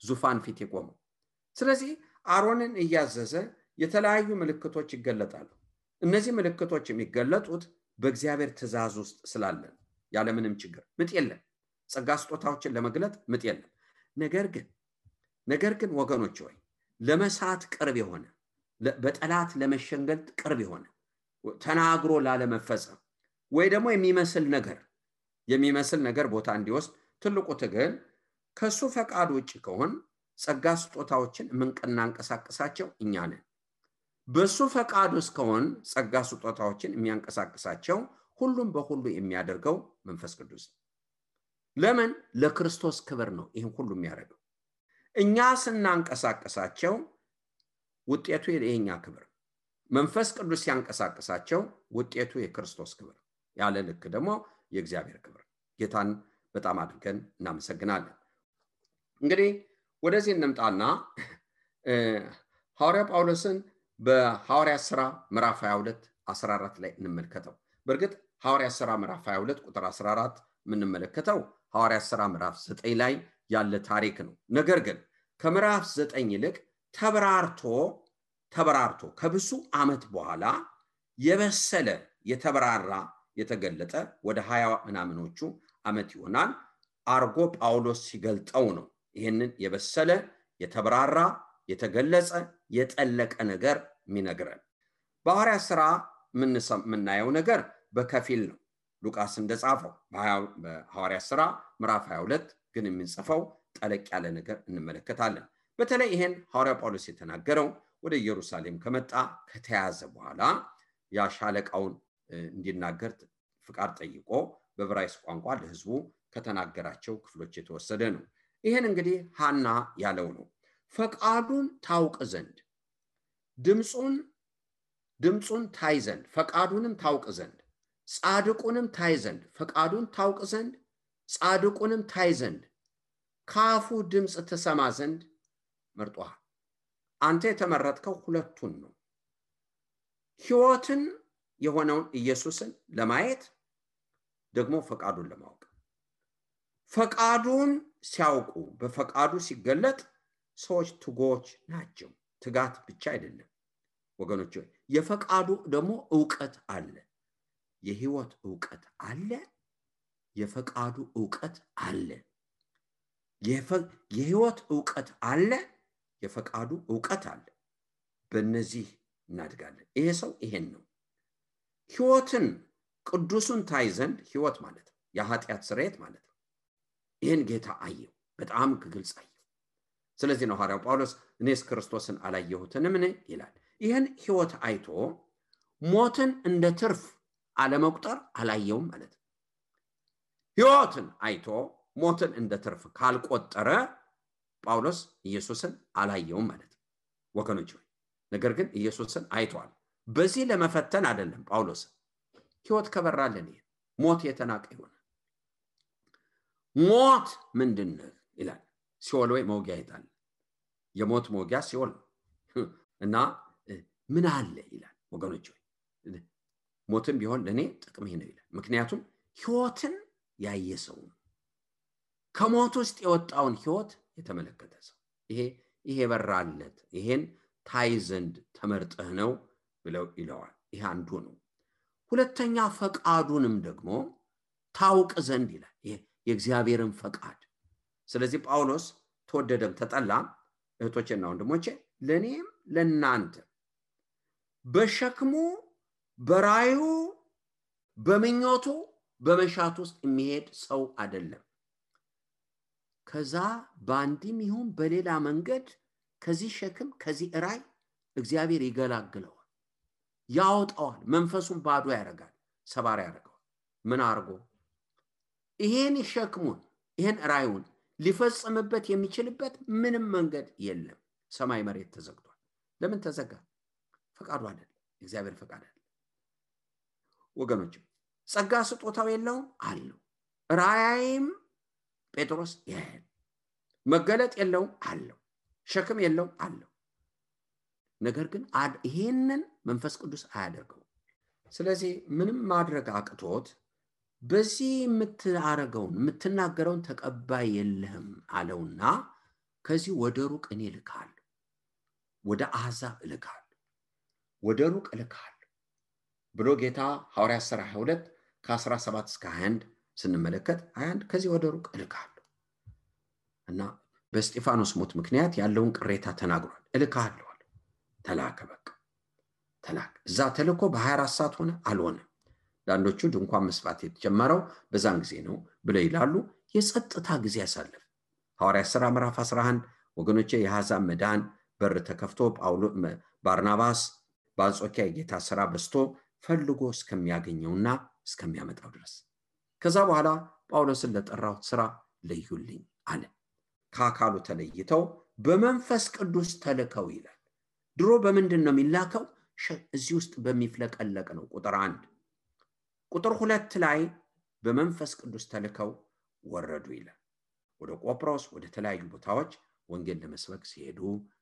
Speaker 2: ዙፋን ፊት የቆመው። ስለዚህ አሮንን እያዘዘ የተለያዩ ምልክቶች ይገለጣሉ። እነዚህ ምልክቶች የሚገለጡት በእግዚአብሔር ትእዛዝ ውስጥ ስላለን ያለምንም ችግር ምጥ የለም። ጸጋ ስጦታዎችን ለመግለጥ ምጥ የለም። ነገር ግን ወገኖች ሆይ ለመሳት ቅርብ የሆነ በጠላት ለመሸንገል ቅርብ የሆነ ተናግሮ ላለመፈጸም ወይ ደግሞ የሚመስል ነገር ቦታ እንዲወስድ ትልቁ ትግል ከሱ ፈቃድ ውጭ ከሆን ጸጋ ስጦታዎችን የምንቀሳቀሳቸው እኛ ነን። በሱ ፈቃድ ውስጥ ከሆን ጸጋ ስጦታዎችን የሚያንቀሳቅሳቸው ሁሉም በሁሉ የሚያደርገው መንፈስ ቅዱስ ነው። ለምን? ለክርስቶስ ክብር ነው ይሄን ሁሉ የሚያደርገው። እኛ ስናንቀሳቀሳቸው ውጤቱ የኛ ክብር፣ መንፈስ ቅዱስ ሲያንቀሳቅሳቸው ውጤቱ የክርስቶስ ክብር፣ ያለ ልክ ደግሞ የእግዚአብሔር ክብር። ጌታን በጣም አድርገን እናመሰግናለን። እንግዲህ ወደዚህ እንምጣና ሐዋርያ ጳውሎስን በሐዋርያ ሥራ ምዕራፍ 22 14 ላይ እንመልከተው። በእርግጥ ሐዋርያ ሥራ ምዕራፍ 22 ቁጥር 14 የምንመለከተው ሐዋርያ ሥራ ምዕራፍ 9 ላይ ያለ ታሪክ ነው። ነገር ግን ከምዕራፍ 9 ይልቅ ተበራርቶ ከብዙ ዓመት በኋላ የበሰለ የተበራራ የተገለጠ ወደ 20 ምናምኖቹ ዓመት ይሆናል አርጎ ጳውሎስ ሲገልጠው ነው ይሄንን የበሰለ የተበራራ የተገለጸ የጠለቀ ነገር የሚነግረን። በሐዋርያ ሥራ የምናየው ነገር በከፊል ነው። ሉቃስ እንደጻፈው በሐዋርያ ሥራ ምዕራፍ 22 ግን የምንጽፈው ጠለቅ ያለ ነገር እንመለከታለን። በተለይ ይሄን ሐዋርያ ጳውሎስ የተናገረው ወደ ኢየሩሳሌም ከመጣ ከተያዘ በኋላ ያሻለቃውን እንዲናገር ፍቃድ ጠይቆ በዕብራይስጥ ቋንቋ ለሕዝቡ ከተናገራቸው ክፍሎች የተወሰደ ነው። ይሄን እንግዲህ ሐና ያለው ነው። ፈቃዱን ታውቅ ዘንድ ድምጹን ታይ ዘንድ ፈቃዱንም ታውቅ ዘንድ ጻድቁንም ታይ ዘንድ ፈቃዱን ታውቅ ዘንድ ጻድቁንም ታይ ዘንድ ካፉ ድምጽ ተሰማ ዘንድ መርጧል። አንተ የተመረጥከው ሁለቱን ነው። ሕይወትን የሆነውን ኢየሱስን ለማየት ደግሞ ፈቃዱን ለማወቅ። ፈቃዱን ሲያውቁ በፈቃዱ ሲገለጥ ሰዎች ትጎች ናቸው። ትጋት ብቻ አይደለም ወገኖች፣ የፈቃዱ ደግሞ ዕውቀት አለ። የሕይወት ዕውቀት አለ። የፈቃዱ ዕውቀት አለ። የሕይወት ዕውቀት አለ። የፈቃዱ ዕውቀት አለ። በእነዚህ እናድጋለን። ይሄ ሰው ይሄን ነው። ሕይወትን ቅዱሱን ታይ ዘንድ ሕይወት ማለት ነው የኃጢአት ስርየት ማለት ነው። ይሄን ጌታ አየው፣ በጣም ግልጽ አየው። ስለዚህ ነው ሐዋርያው ጳውሎስ እኔስ ክርስቶስን አላየሁትንም ይላል። ይሄን ሕይወት አይቶ ሞትን እንደ ትርፍ አለመቁጠር አላየውም ማለት ነው። ሕይወትን አይቶ ሞትን እንደ ትርፍ ካልቆጠረ ጳውሎስ ኢየሱስን አላየውም ማለት ነው ወገኖች። ነገር ግን ኢየሱስን አይቷል። በዚህ ለመፈተን አይደለም ጳውሎስ። ሕይወት ከበራለን ሞት የተናቀ ይሆናል። ሞት ምንድነው ይላል። ሲኦል ወይ መውጊያ ይጣል። የሞት መውጊያ ሲኦል እና ምን አለ ይላል ወገኖች ሞትም ቢሆን ለኔ ጥቅም ይሄ ነው ይላል ምክንያቱም ህይወትን ያየ ሰው ከሞት ውስጥ የወጣውን ህይወት የተመለከተ ሰው ይሄ በራለት ይሄን ታይ ዘንድ ተመርጠህ ነው ብለው ይለዋል ይሄ አንዱ ነው ሁለተኛ ፈቃዱንም ደግሞ ታውቅ ዘንድ ይላል የእግዚአብሔርን ፈቃድ ስለዚህ ጳውሎስ ተወደደም ተጠላም እህቶቼና ወንድሞቼ ለኔም ለናንተ በሸክሙ በራዩ በመኞቱ በመሻቱ ውስጥ የሚሄድ ሰው አይደለም ከዛ ባንዲም ይሁን በሌላ መንገድ ከዚህ ሸክም ከዚህ ራይ እግዚአብሔር ይገላግለዋል ያወጣዋል መንፈሱን ባዶ ያረጋል ሰባሪ ያረጋል ምን አርጎ ይሄን ሸክሙን ይሄን ራዩን ሊፈጽምበት የሚችልበት ምንም መንገድ የለም ሰማይ መሬት ተዘግቷል ለምን ተዘጋ ፈቃዱ አይደለም እግዚአብሔር ፈቃድ አይደለም ወገኖች ጸጋ ስጦታው የለውም አለው ራያይም ጴጥሮስ ይሄን መገለጥ የለውም አለው ሸክም የለውም አለው ነገር ግን ይሄንን መንፈስ ቅዱስ አያደርገው ስለዚህ ምንም ማድረግ አቅቶት በዚህ የምትናገረውን ተቀባይ የለህም አለውና ከዚህ ወደ ሩቅ እኔ ልካለሁ ወደ አሕዛብ ልካለሁ ወደ ሩቅ ልካለሁ ብሎ ጌታ ሐዋርያት ሥራ 22 ከ17 እስከ 21 ስንመለከት 21 ከዚህ ወደ ሩቅ ልካለሁ እና በስጢፋኖስ ሞት ምክንያት ያለውን ቅሬታ ተናግሯል እልካለሁ ተላከ በቃ ተላከ እዛ ተልኮ በ24 ሰዓት ሆነ አልሆነ ዳንዶቹ ድንኳን መስፋት የተጀመረው በዛን ጊዜ ነው ብለው ይላሉ የጸጥታ ጊዜ ያሳለፈ ሐዋርያት ሥራ ምዕራፍ 11 ወገኖቼ የአሕዛብ መዳን በር ተከፍቶ ጳውሎስ ባርናባስ በአንጾኪያ የጌታ ሥራ በስቶ ፈልጎ እስከሚያገኘውና እስከሚያመጣው ድረስ ከዛ በኋላ ጳውሎስን ለጠራው ሥራ ለዩልኝ አለ ከአካሉ ተለይተው በመንፈስ ቅዱስ ተልከው ይላል ድሮ በምንድን ነው የሚላከው እዚህ ውስጥ በሚፍለቀለቅ ነው ቁጥር 1 ቁጥር 2 ላይ በመንፈስ ቅዱስ ተልከው ወረዱ ይላል ወደ ቆጵሮስ ወደ ተለያዩ ቦታዎች ወንጌል ለመስበክ ሲሄዱ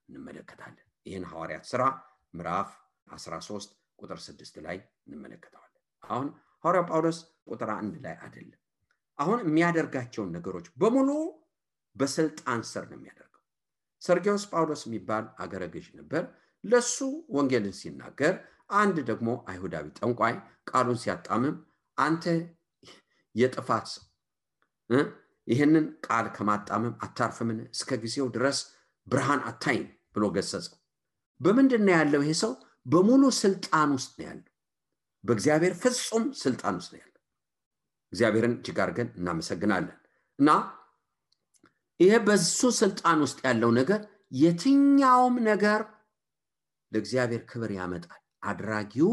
Speaker 2: እንመለከታለን ይሄን ሐዋርያት ሥራ ምዕራፍ 13 ቁጥር 6 ላይ እንመለከታለን አሁን ሐዋርያው ጳውሎስ ቁጥር 1 ላይ አይደለም አሁን የሚያደርጋቸው ነገሮች በሙሉ በስልጣን ስር ነው የሚያደርገው ሰርጊዮስ ጳውሎስ የሚባል አገረ ገዥ ነበር ለሱ ወንጌልን ሲናገር አንድ ደግሞ አይሁዳዊ ጠንቋይ ቃሉን ሲያጣምም አንተ የጥፋት ሰው ይሄንን ቃል ከማጣመም አታርፍምን እስከ ጊዜው ድረስ ብርሃን አታይም ብሎ ገሰጸው በመንደና ያለው ይሄ ሰው በሙሉ ስልጣን ውስጥ ነው ያለው በእግዚአብሔር ፍጹም ስልጣን ውስጥ ነው ያለው እግዚአብሔርን ጅጋርገን እናመሰግናለን እና ይሄ በሱ ስልጣን ውስጥ ያለው ነገር የትኛውም ነገር ለእግዚአብሔር ክብር ያመጣል አድራጊው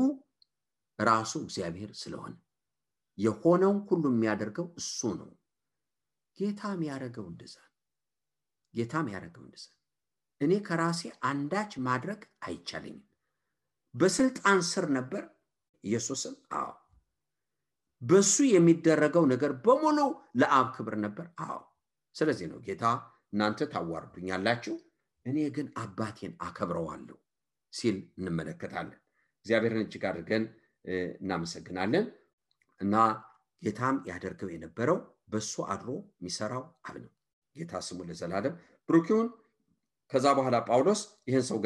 Speaker 2: ራሱ እግዚአብሔር ስለሆነ የሆነው ሁሉ የሚያደርገው እሱ ነው ጌታም ያረጋው እንደዛ እኔ ከራሴ አንዳች ማድረግ አይቻለኝም በስልጣን ስር ነበር ኢየሱስም በሱ የሚደረገው ነገር በሙሉ ለአብ ክብር ነበር ስለዚህ ነው ጌታ እናንተ ታዋርዱኛላችሁ እኔ ግን አባቴን አከብረዋለሁ ሲል እንመለከታለን እግዚአብሔርን እጅግ አድርገን እናመሰግናለን እና ጌታም ያደርገው የነበረው በሱ አድሮ የሚሰራው አብ ነው ጌታ ስሙ ለዘላለም ብሩክ ይሁን ከዛ በኋላ ጳውሎስ ይሄን ሰው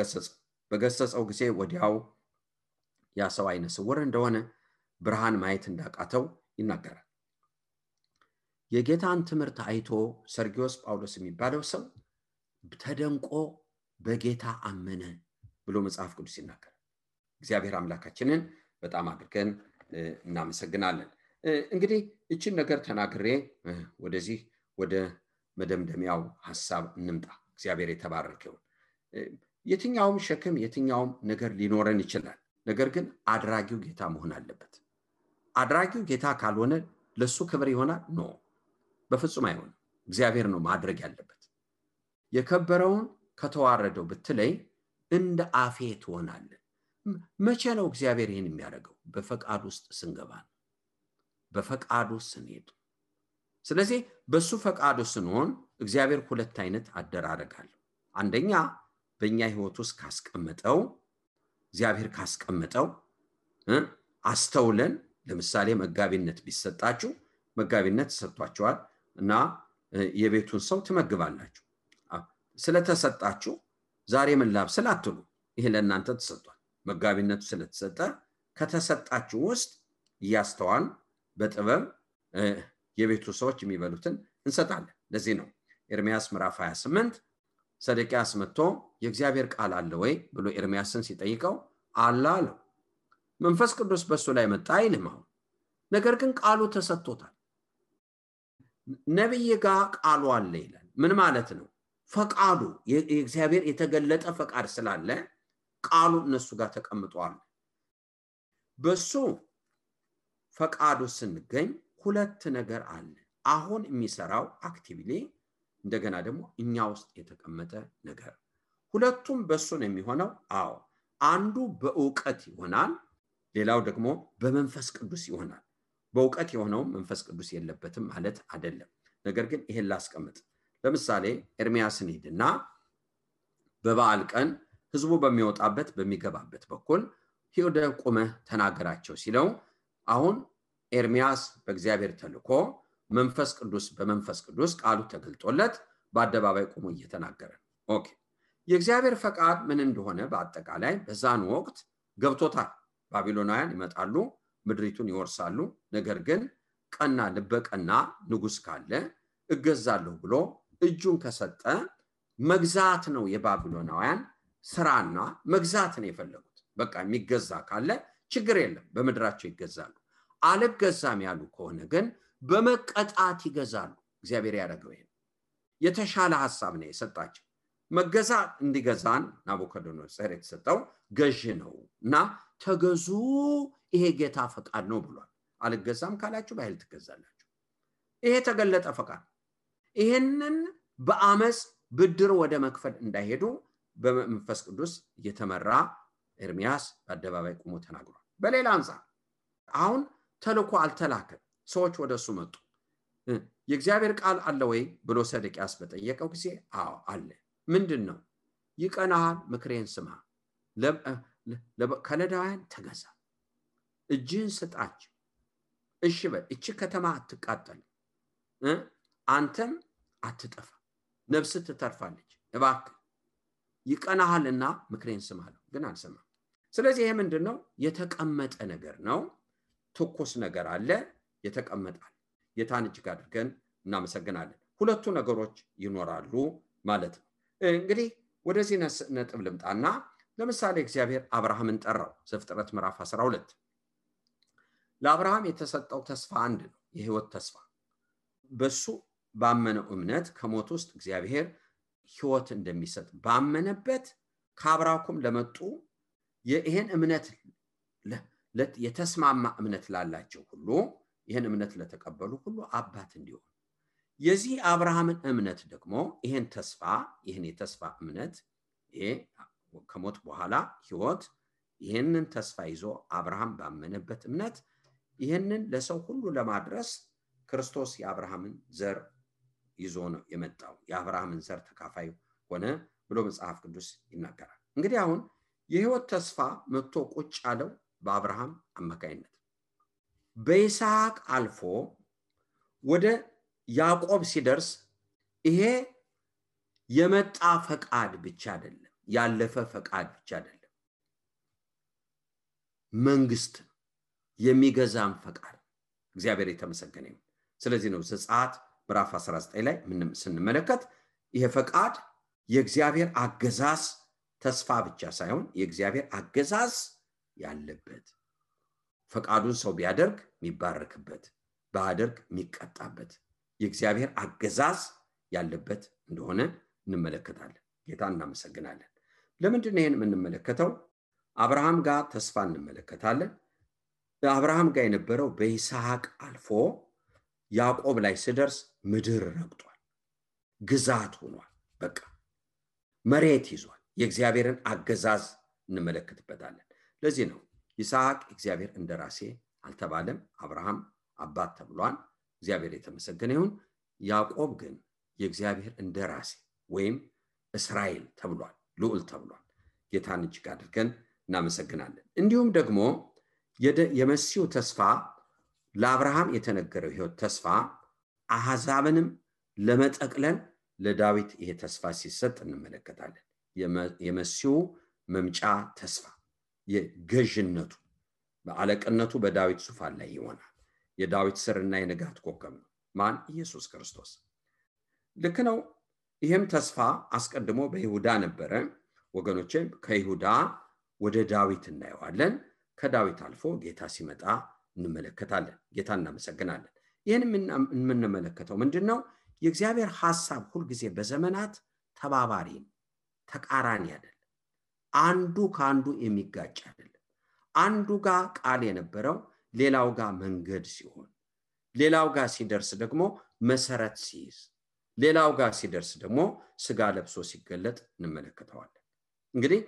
Speaker 2: በገሰጸው ጊዜ ወዲያው ያ ሰው አይነ ስውር እንደሆነ ብርሃን ማየት እንዳቃተው ይናገራል የጌታን ትምህርት አይቶ ሰርጊዮስ ጳውሎስ የሚባለው ሰው ተደንቆ በጌታ አመነ ብሎ መጽሐፍ ቅዱስ ይናገራል እግዚአብሔር አምላካችንን በጣም አድርገን እናመሰግናለን እንግዲህ እቺን ነገር ተናግሬ ወደዚህ ወደ መደምደሚያው ሐሳብ እንምጣ እግዚአብሔር የተባረከው የትኛውም ሸክም የትኛውም ነገር ሊኖረን ይችላል ነገር ግን አድራጊው ጌታ መሆን አለበት አድራጊው ጌታ ካልሆነ ለሱ ክብር ይሆናል ነው በፍጹም አይሆንም እግዚአብሔር ነው ማድረግ ያለበት የከበረውን ከተዋረደው ብትለይ እንደ አፌ ትሆናለህ መቼ ነው እግዚአብሔር ይሄን የሚያደርገው በፈቃድ ውስጥ ስንገባ በፈቃዱ ስንሄድ ስለዚህ በሱ ፈቃዱ ስንሆን እግዚአብሔር ሁለት አይነት አደራረጋል አንደኛ በእኛ ህይወት ውስጥ ካስቀመጠው እግዚአብሔር ካስቀመጠው አስተውለን ለምሳሌ መጋቢነት ቢሰጣችሁ መጋቢነት ተሰጥቷችኋል እና የቤቱን ሰው ትመግባላችሁ ስለተሰጣችሁ ዛሬ ምን ላብስል አትሉ ይሄ ለእናንተ ተሰጥቷል መጋቢነቱ ስለተሰጠ ከተሰጣችሁ ውስጥ ያስተዋል በጥበብ የቤቱ ሰዎች የሚበሉትን እንሰጣለን ለዚህ ነው ኤርሚያስ ምዕራፍ 28 ሰደቂያስ መጥቶ የእግዚአብሔር ቃል አለ ወይ ብሎ ኤርሚያስን ሲጠይቀው አለ አለው መንፈስ ቅዱስ በሱ ላይ መጣ አይልም ነገር ግን ቃሉ ተሰጥቶታል ነብይ ጋር ቃሉ አለ ይላል ምን ማለት ነው ፈቃዱ የእግዚአብሔር የተገለጠ ፈቃድ ስላለ ቃሉ እነሱ ጋር ተቀምጧል በሱ ፈቃዱ ስንገኝ ሁለት ነገር አለ አሁን የሚሰራው አክቲቭሊ እንደገና ደግሞ እኛ ውስጥ የተቀመጠ ነገር ሁለቱም በሱ ነው የሚሆነው አንዱ በእውቀት ይሆናል ሌላው ደግሞ በመንፈስ ቅዱስ ይሆናል በእውቀት የሆነው መንፈስ ቅዱስ የለበትም ማለት አይደለም ነገር ግን ይሄን ላስቀምጥ ለምሳሌ ኤርሚያስን ሄድና በበዓል ቀን ህዝቡ በሚወጣበት በሚገባበት በኩል ሄደ ቆመህ ተናገራቸው ሲለው አሁን ኤርሚያስ በእግዚአብሔር ተልኮ መንፈስ ቅዱስ በመንፈስ ቅዱስ ቃሉ ተገልጦለት በአደባባይ ቆሞ እየተናገረ ኦኬ የእግዚአብሔር ፈቃድ ምን እንደሆነ በአጠቃላይ በዛን ወቅት ገብቶታል ባቢሎናውያን ይመጣሉ ምድሪቱን ይወርሳሉ ነገር ግን ቀና ልበቀና ንጉስ ካለ እገዛለሁ ብሎ እጁን ከሰጠ መግዛት ነው የባቢሎናውያን ስራና መግዛት ነው የፈለጉት በቃ የሚገዛ ካለ ችግር የለም በመድራቸው ይገዛሉ አልገዛም ያሉ ከሆነ ግን በመቀጣት ይገዛሉ እግዚአብሔር ያደረገው ይሄ የተሻለ ሐሳብ ነው የሰጣቸው መገዛ እንዲገዛን ናቡከደነጾር የተሰጠው ገዥ ነውና ተገዙ ይሄ ጌታ ፈቃድ ነው ብሏል አልገዛም ካላችሁ በኃይል ትገዛላችሁ ይሄ ተገለጠ ፈቃድ ይሄንን በአመጽ ብድር ወደ መክፈል እንዳይሄዱ በመንፈስ ቅዱስ እየተመራ ኤርሚያስ በአደባባይ ቆሞ ተናግሯል በሌላ አንፃር አሁን ተልኮ አልተላከም ሰዎች ወደሱ መጡ የእግዚአብሔር ቃል አለ ወይ ብሎ ሰደቂያስ በጠየቀው ጊዜ አለ ምንድነው ይቀናል ምክሬን ስማ ለከለዳውያን ተገዛ እጅን ስጣች እሺ በል እቺ ከተማ አትቃጠል አንተም አትጠፋ ነፍስ ትተርፋለች እባክህ ይቀናልና ምክሬን ስማለሁ ግን አልሰማም ስለዚህ ይሄ ምንድነው የተቀመጠ ነገር ነው ትኩስ ነገር አለ የተቀመጣል የታን እጅግ አድርገን እናመሰግናለን ሁለቱ ነገሮች ይኖራሉ ማለት ነው እንግዲህ ወደዚህ ነጥብ ልምጣና ለምሳሌ እግዚአብሔር አብርሃምን ጠራው ዘፍጥረት ምዕራፍ 12 ለአብርሃም የተሰጠው ተስፋ አንድ ነው የህይወት ተስፋ በሱ ባመነው እምነት ከሞት ውስጥ እግዚአብሔር ህይወት እንደሚሰጥ ባመነበት ከአብርሃም ለመጡ ይሄን እምነት የተስማማ እምነት ላላቸው ሁሉ ይሄን እምነት ለተቀበሉ ሁሉ አባት እንዲሆን የዚህ አብርሃምን እምነት ደግሞ ይሄን ተስፋ ይሄን የተስፋ እምነት ይሄ ከሞት በኋላ ህይወት ይሄንን ተስፋ ይዞ አብርሃም ባመነበት እምነት ይሄንን ለሰው ሁሉ ለማድረስ ክርስቶስ የአብርሃምን ዘር ይዞ ነው የመጣው የአብርሃምን ዘር ተካፋይ ሆነ ብሎ መጽሐፍ ቅዱስ ይናገራል እንግዲህ አሁን የህይወት ተስፋ መጥቶ ቁጭ ያለው በአብርሃም አማካይነት በይስሐቅ አልፎ ወደ ያዕቆብ ሲደርስ ይሄ የመጣ ፈቃድ ብቻ አይደለም ያለፈ ፈቃድ ብቻ አይደለም መንግስት የሚገዛም ፈቃድ እግዚአብሔር የተመሰገነ ይሁን ስለዚህ ነው ዘጸአት ምዕራፍ 19 ላይ ምንም ስንመለከት ይሄ ፈቃድ የእግዚአብሔር አገዛዝ ተስፋ ብቻ ሳይሆን የእግዚአብሔር አገዛዝ ያለበት ፈቃዱን ሰው ቢያደርግ የሚባረክበት ባያደርግ የሚቀጣበት የእግዚአብሔር አገዛዝ ያለበት እንደሆነ እንመለከታለን ጌታን እናመሰግናለን ለምንድን ነው ይሄን የምንመለከተው አብርሃም ጋር ተስፋ እንመለከታለን አብርሃም ጋር የነበረው በይስሐቅ አልፎ ያዕቆብ ላይ ሲደርስ ምድር ረግጧል ግዛት ሆኗል በቃ መሬት ይዟል የእግዚአብሔርን አገዛዝ እንመለከትበታለን ለዚህ ነው ይስሐቅ እግዚአብሔር እንደራሴ አልተባለም አብርሃም አባት ተብሏል እግዚአብሔር የተመሰገነ ይሁን ያዕቆብ ግን የእግዚአብሔር እንደራሴ ወይም እስራኤል ተብሏል ልዑል ተብሏል። ጌታን እጅግ አድርገን እናመሰግናለን። እንዲሁም ደግሞ የመሲሁ ተስፋ ለአብርሃም የተነገረው ሕይወት ተስፋ አሕዛብንም ለመጠቅለል ለዳዊት ይሄ ተስፋ ሲሰጥ እንመለከታለን። የመሲሁ መምጫ ተስፋ የገዥነቱ በአለቅነቱ በዳዊት ዙፋን ላይ ይሆናል። የዳዊት ስርና የንጋት ኮከብ ነው። ማን? ኢየሱስ ክርስቶስ። ልክ ነው። ይህም ተስፋ አስቀድሞ በይሁዳ ነበረ። ወገኖቼ ከይሁዳ ወደ ዳዊት እናየዋለን። ከዳዊት አልፎ ጌታ ሲመጣ እንመለከታለን። ጌታ እናመሰግናለን። ይህን የምንመለከተው ምንድነው? የእግዚአብሔር ሐሳብ ሁልጊዜ በዘመናት ተባባሪ ነው፣ ተቃራኒ አይደለም። አንዱ ከአንዱ የሚጋጭ አይደለም። አንዱ ጋር ቃል የነበረው ሌላው ጋር መንገድ ሲሆን፣ ሌላው ጋር ሲደርስ ደግሞ መሰረት ሲይዝ፣ ሌላው ጋር ሲደርስ ደግሞ ስጋ ለብሶ ሲገለጥ እንመለከተዋለን። እንግዲህ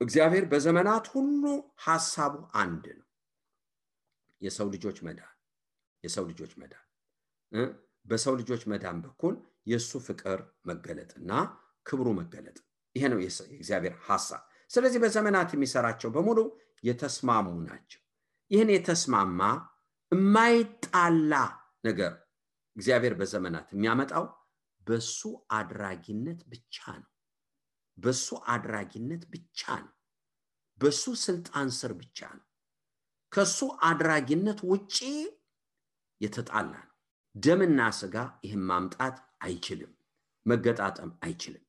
Speaker 2: እግዚአብሔር በዘመናት ሁሉ ሐሳቡ አንድ ነው። የሰው ልጆች መዳን በሰው ልጆች መዳን በኩል የሱ ፍቅር መገለጥና ክብሩ መገለጥ፣ ይሄ ነው የእግዚአብሔር ሐሳብ። ስለዚህ በዘመናት የሚሰራቸው በሙሉ የተስማሙ ናቸው። ይህን የተስማማ የማይጣላ ነገር እግዚአብሔር በዘመናት የሚያመጣው በሱ አድራጊነት ብቻ ነው። በሱ አድራጊነት ብቻ ነው። በሱ ስልጣን ስር ብቻ ነው። ከሱ አድራጊነት ውጪ የተጣላ ነው። ደምና ስጋ ይህን ማምጣት አይችልም፣ መገጣጠም አይችልም።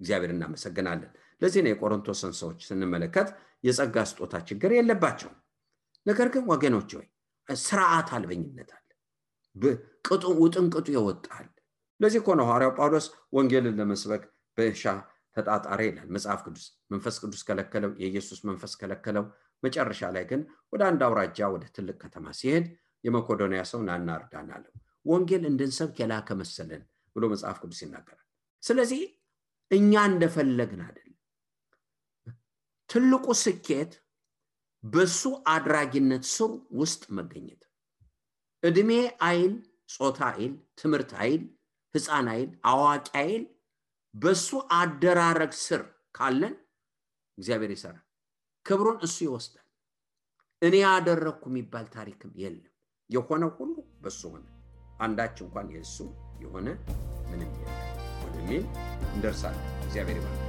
Speaker 2: እግዚአብሔር እናመሰግናለን። ለዚህ ነው የቆሮንቶስን ሰዎች ስንመለከት የጸጋ ስጦታ ችግር የለባቸው። ነገር ግን ወገኖች ሆይ ስርዓት አልበኝነት አለ፣ ውጥንቅጡ ይወጣል። ለዚህ እኮ ነው ሐዋርያው ጳውሎስ ወንጌልን ለመስበክ በእርሻ ተጣጣረ ይላል መጽሐፍ ቅዱስ። መንፈስ ቅዱስ ከለከለው፣ የኢየሱስ መንፈስ ከለከለው። መጨረሻ ላይ ግን ወደ አንድ አውራጃ ወደ ትልቅ ከተማ ሲሄድ የመቄዶንያ ሰው ናና እርዳን አለው። ወንጌል እንድንሰብክ የላከ መሰለን ብሎ መጽሐፍ ቅዱስ ይናገራል። ስለዚህ እኛ እንደፈለግን አይደለም። ትልቁ ስኬት በሱ አድራጊነት ስር ውስጥ መገኘት። እድሜ አይል፣ ጾታ አይል፣ ትምህርት አይል፣ ሕፃን አይል፣ አዋቂ አይል፣ በሱ አደራረግ ስር ካለን እግዚአብሔር ይሰራል። ክብሩን እሱ ይወስዳል። እኔ ያደረኩ የሚባል ታሪክም የለም። የሆነ ሁሉ በሱ ሆነ። አንዳች እንኳን የሱ የሆነ ምንም የለም ወደሚል እንደርሳለን። እግዚአብሔር ይባርክ።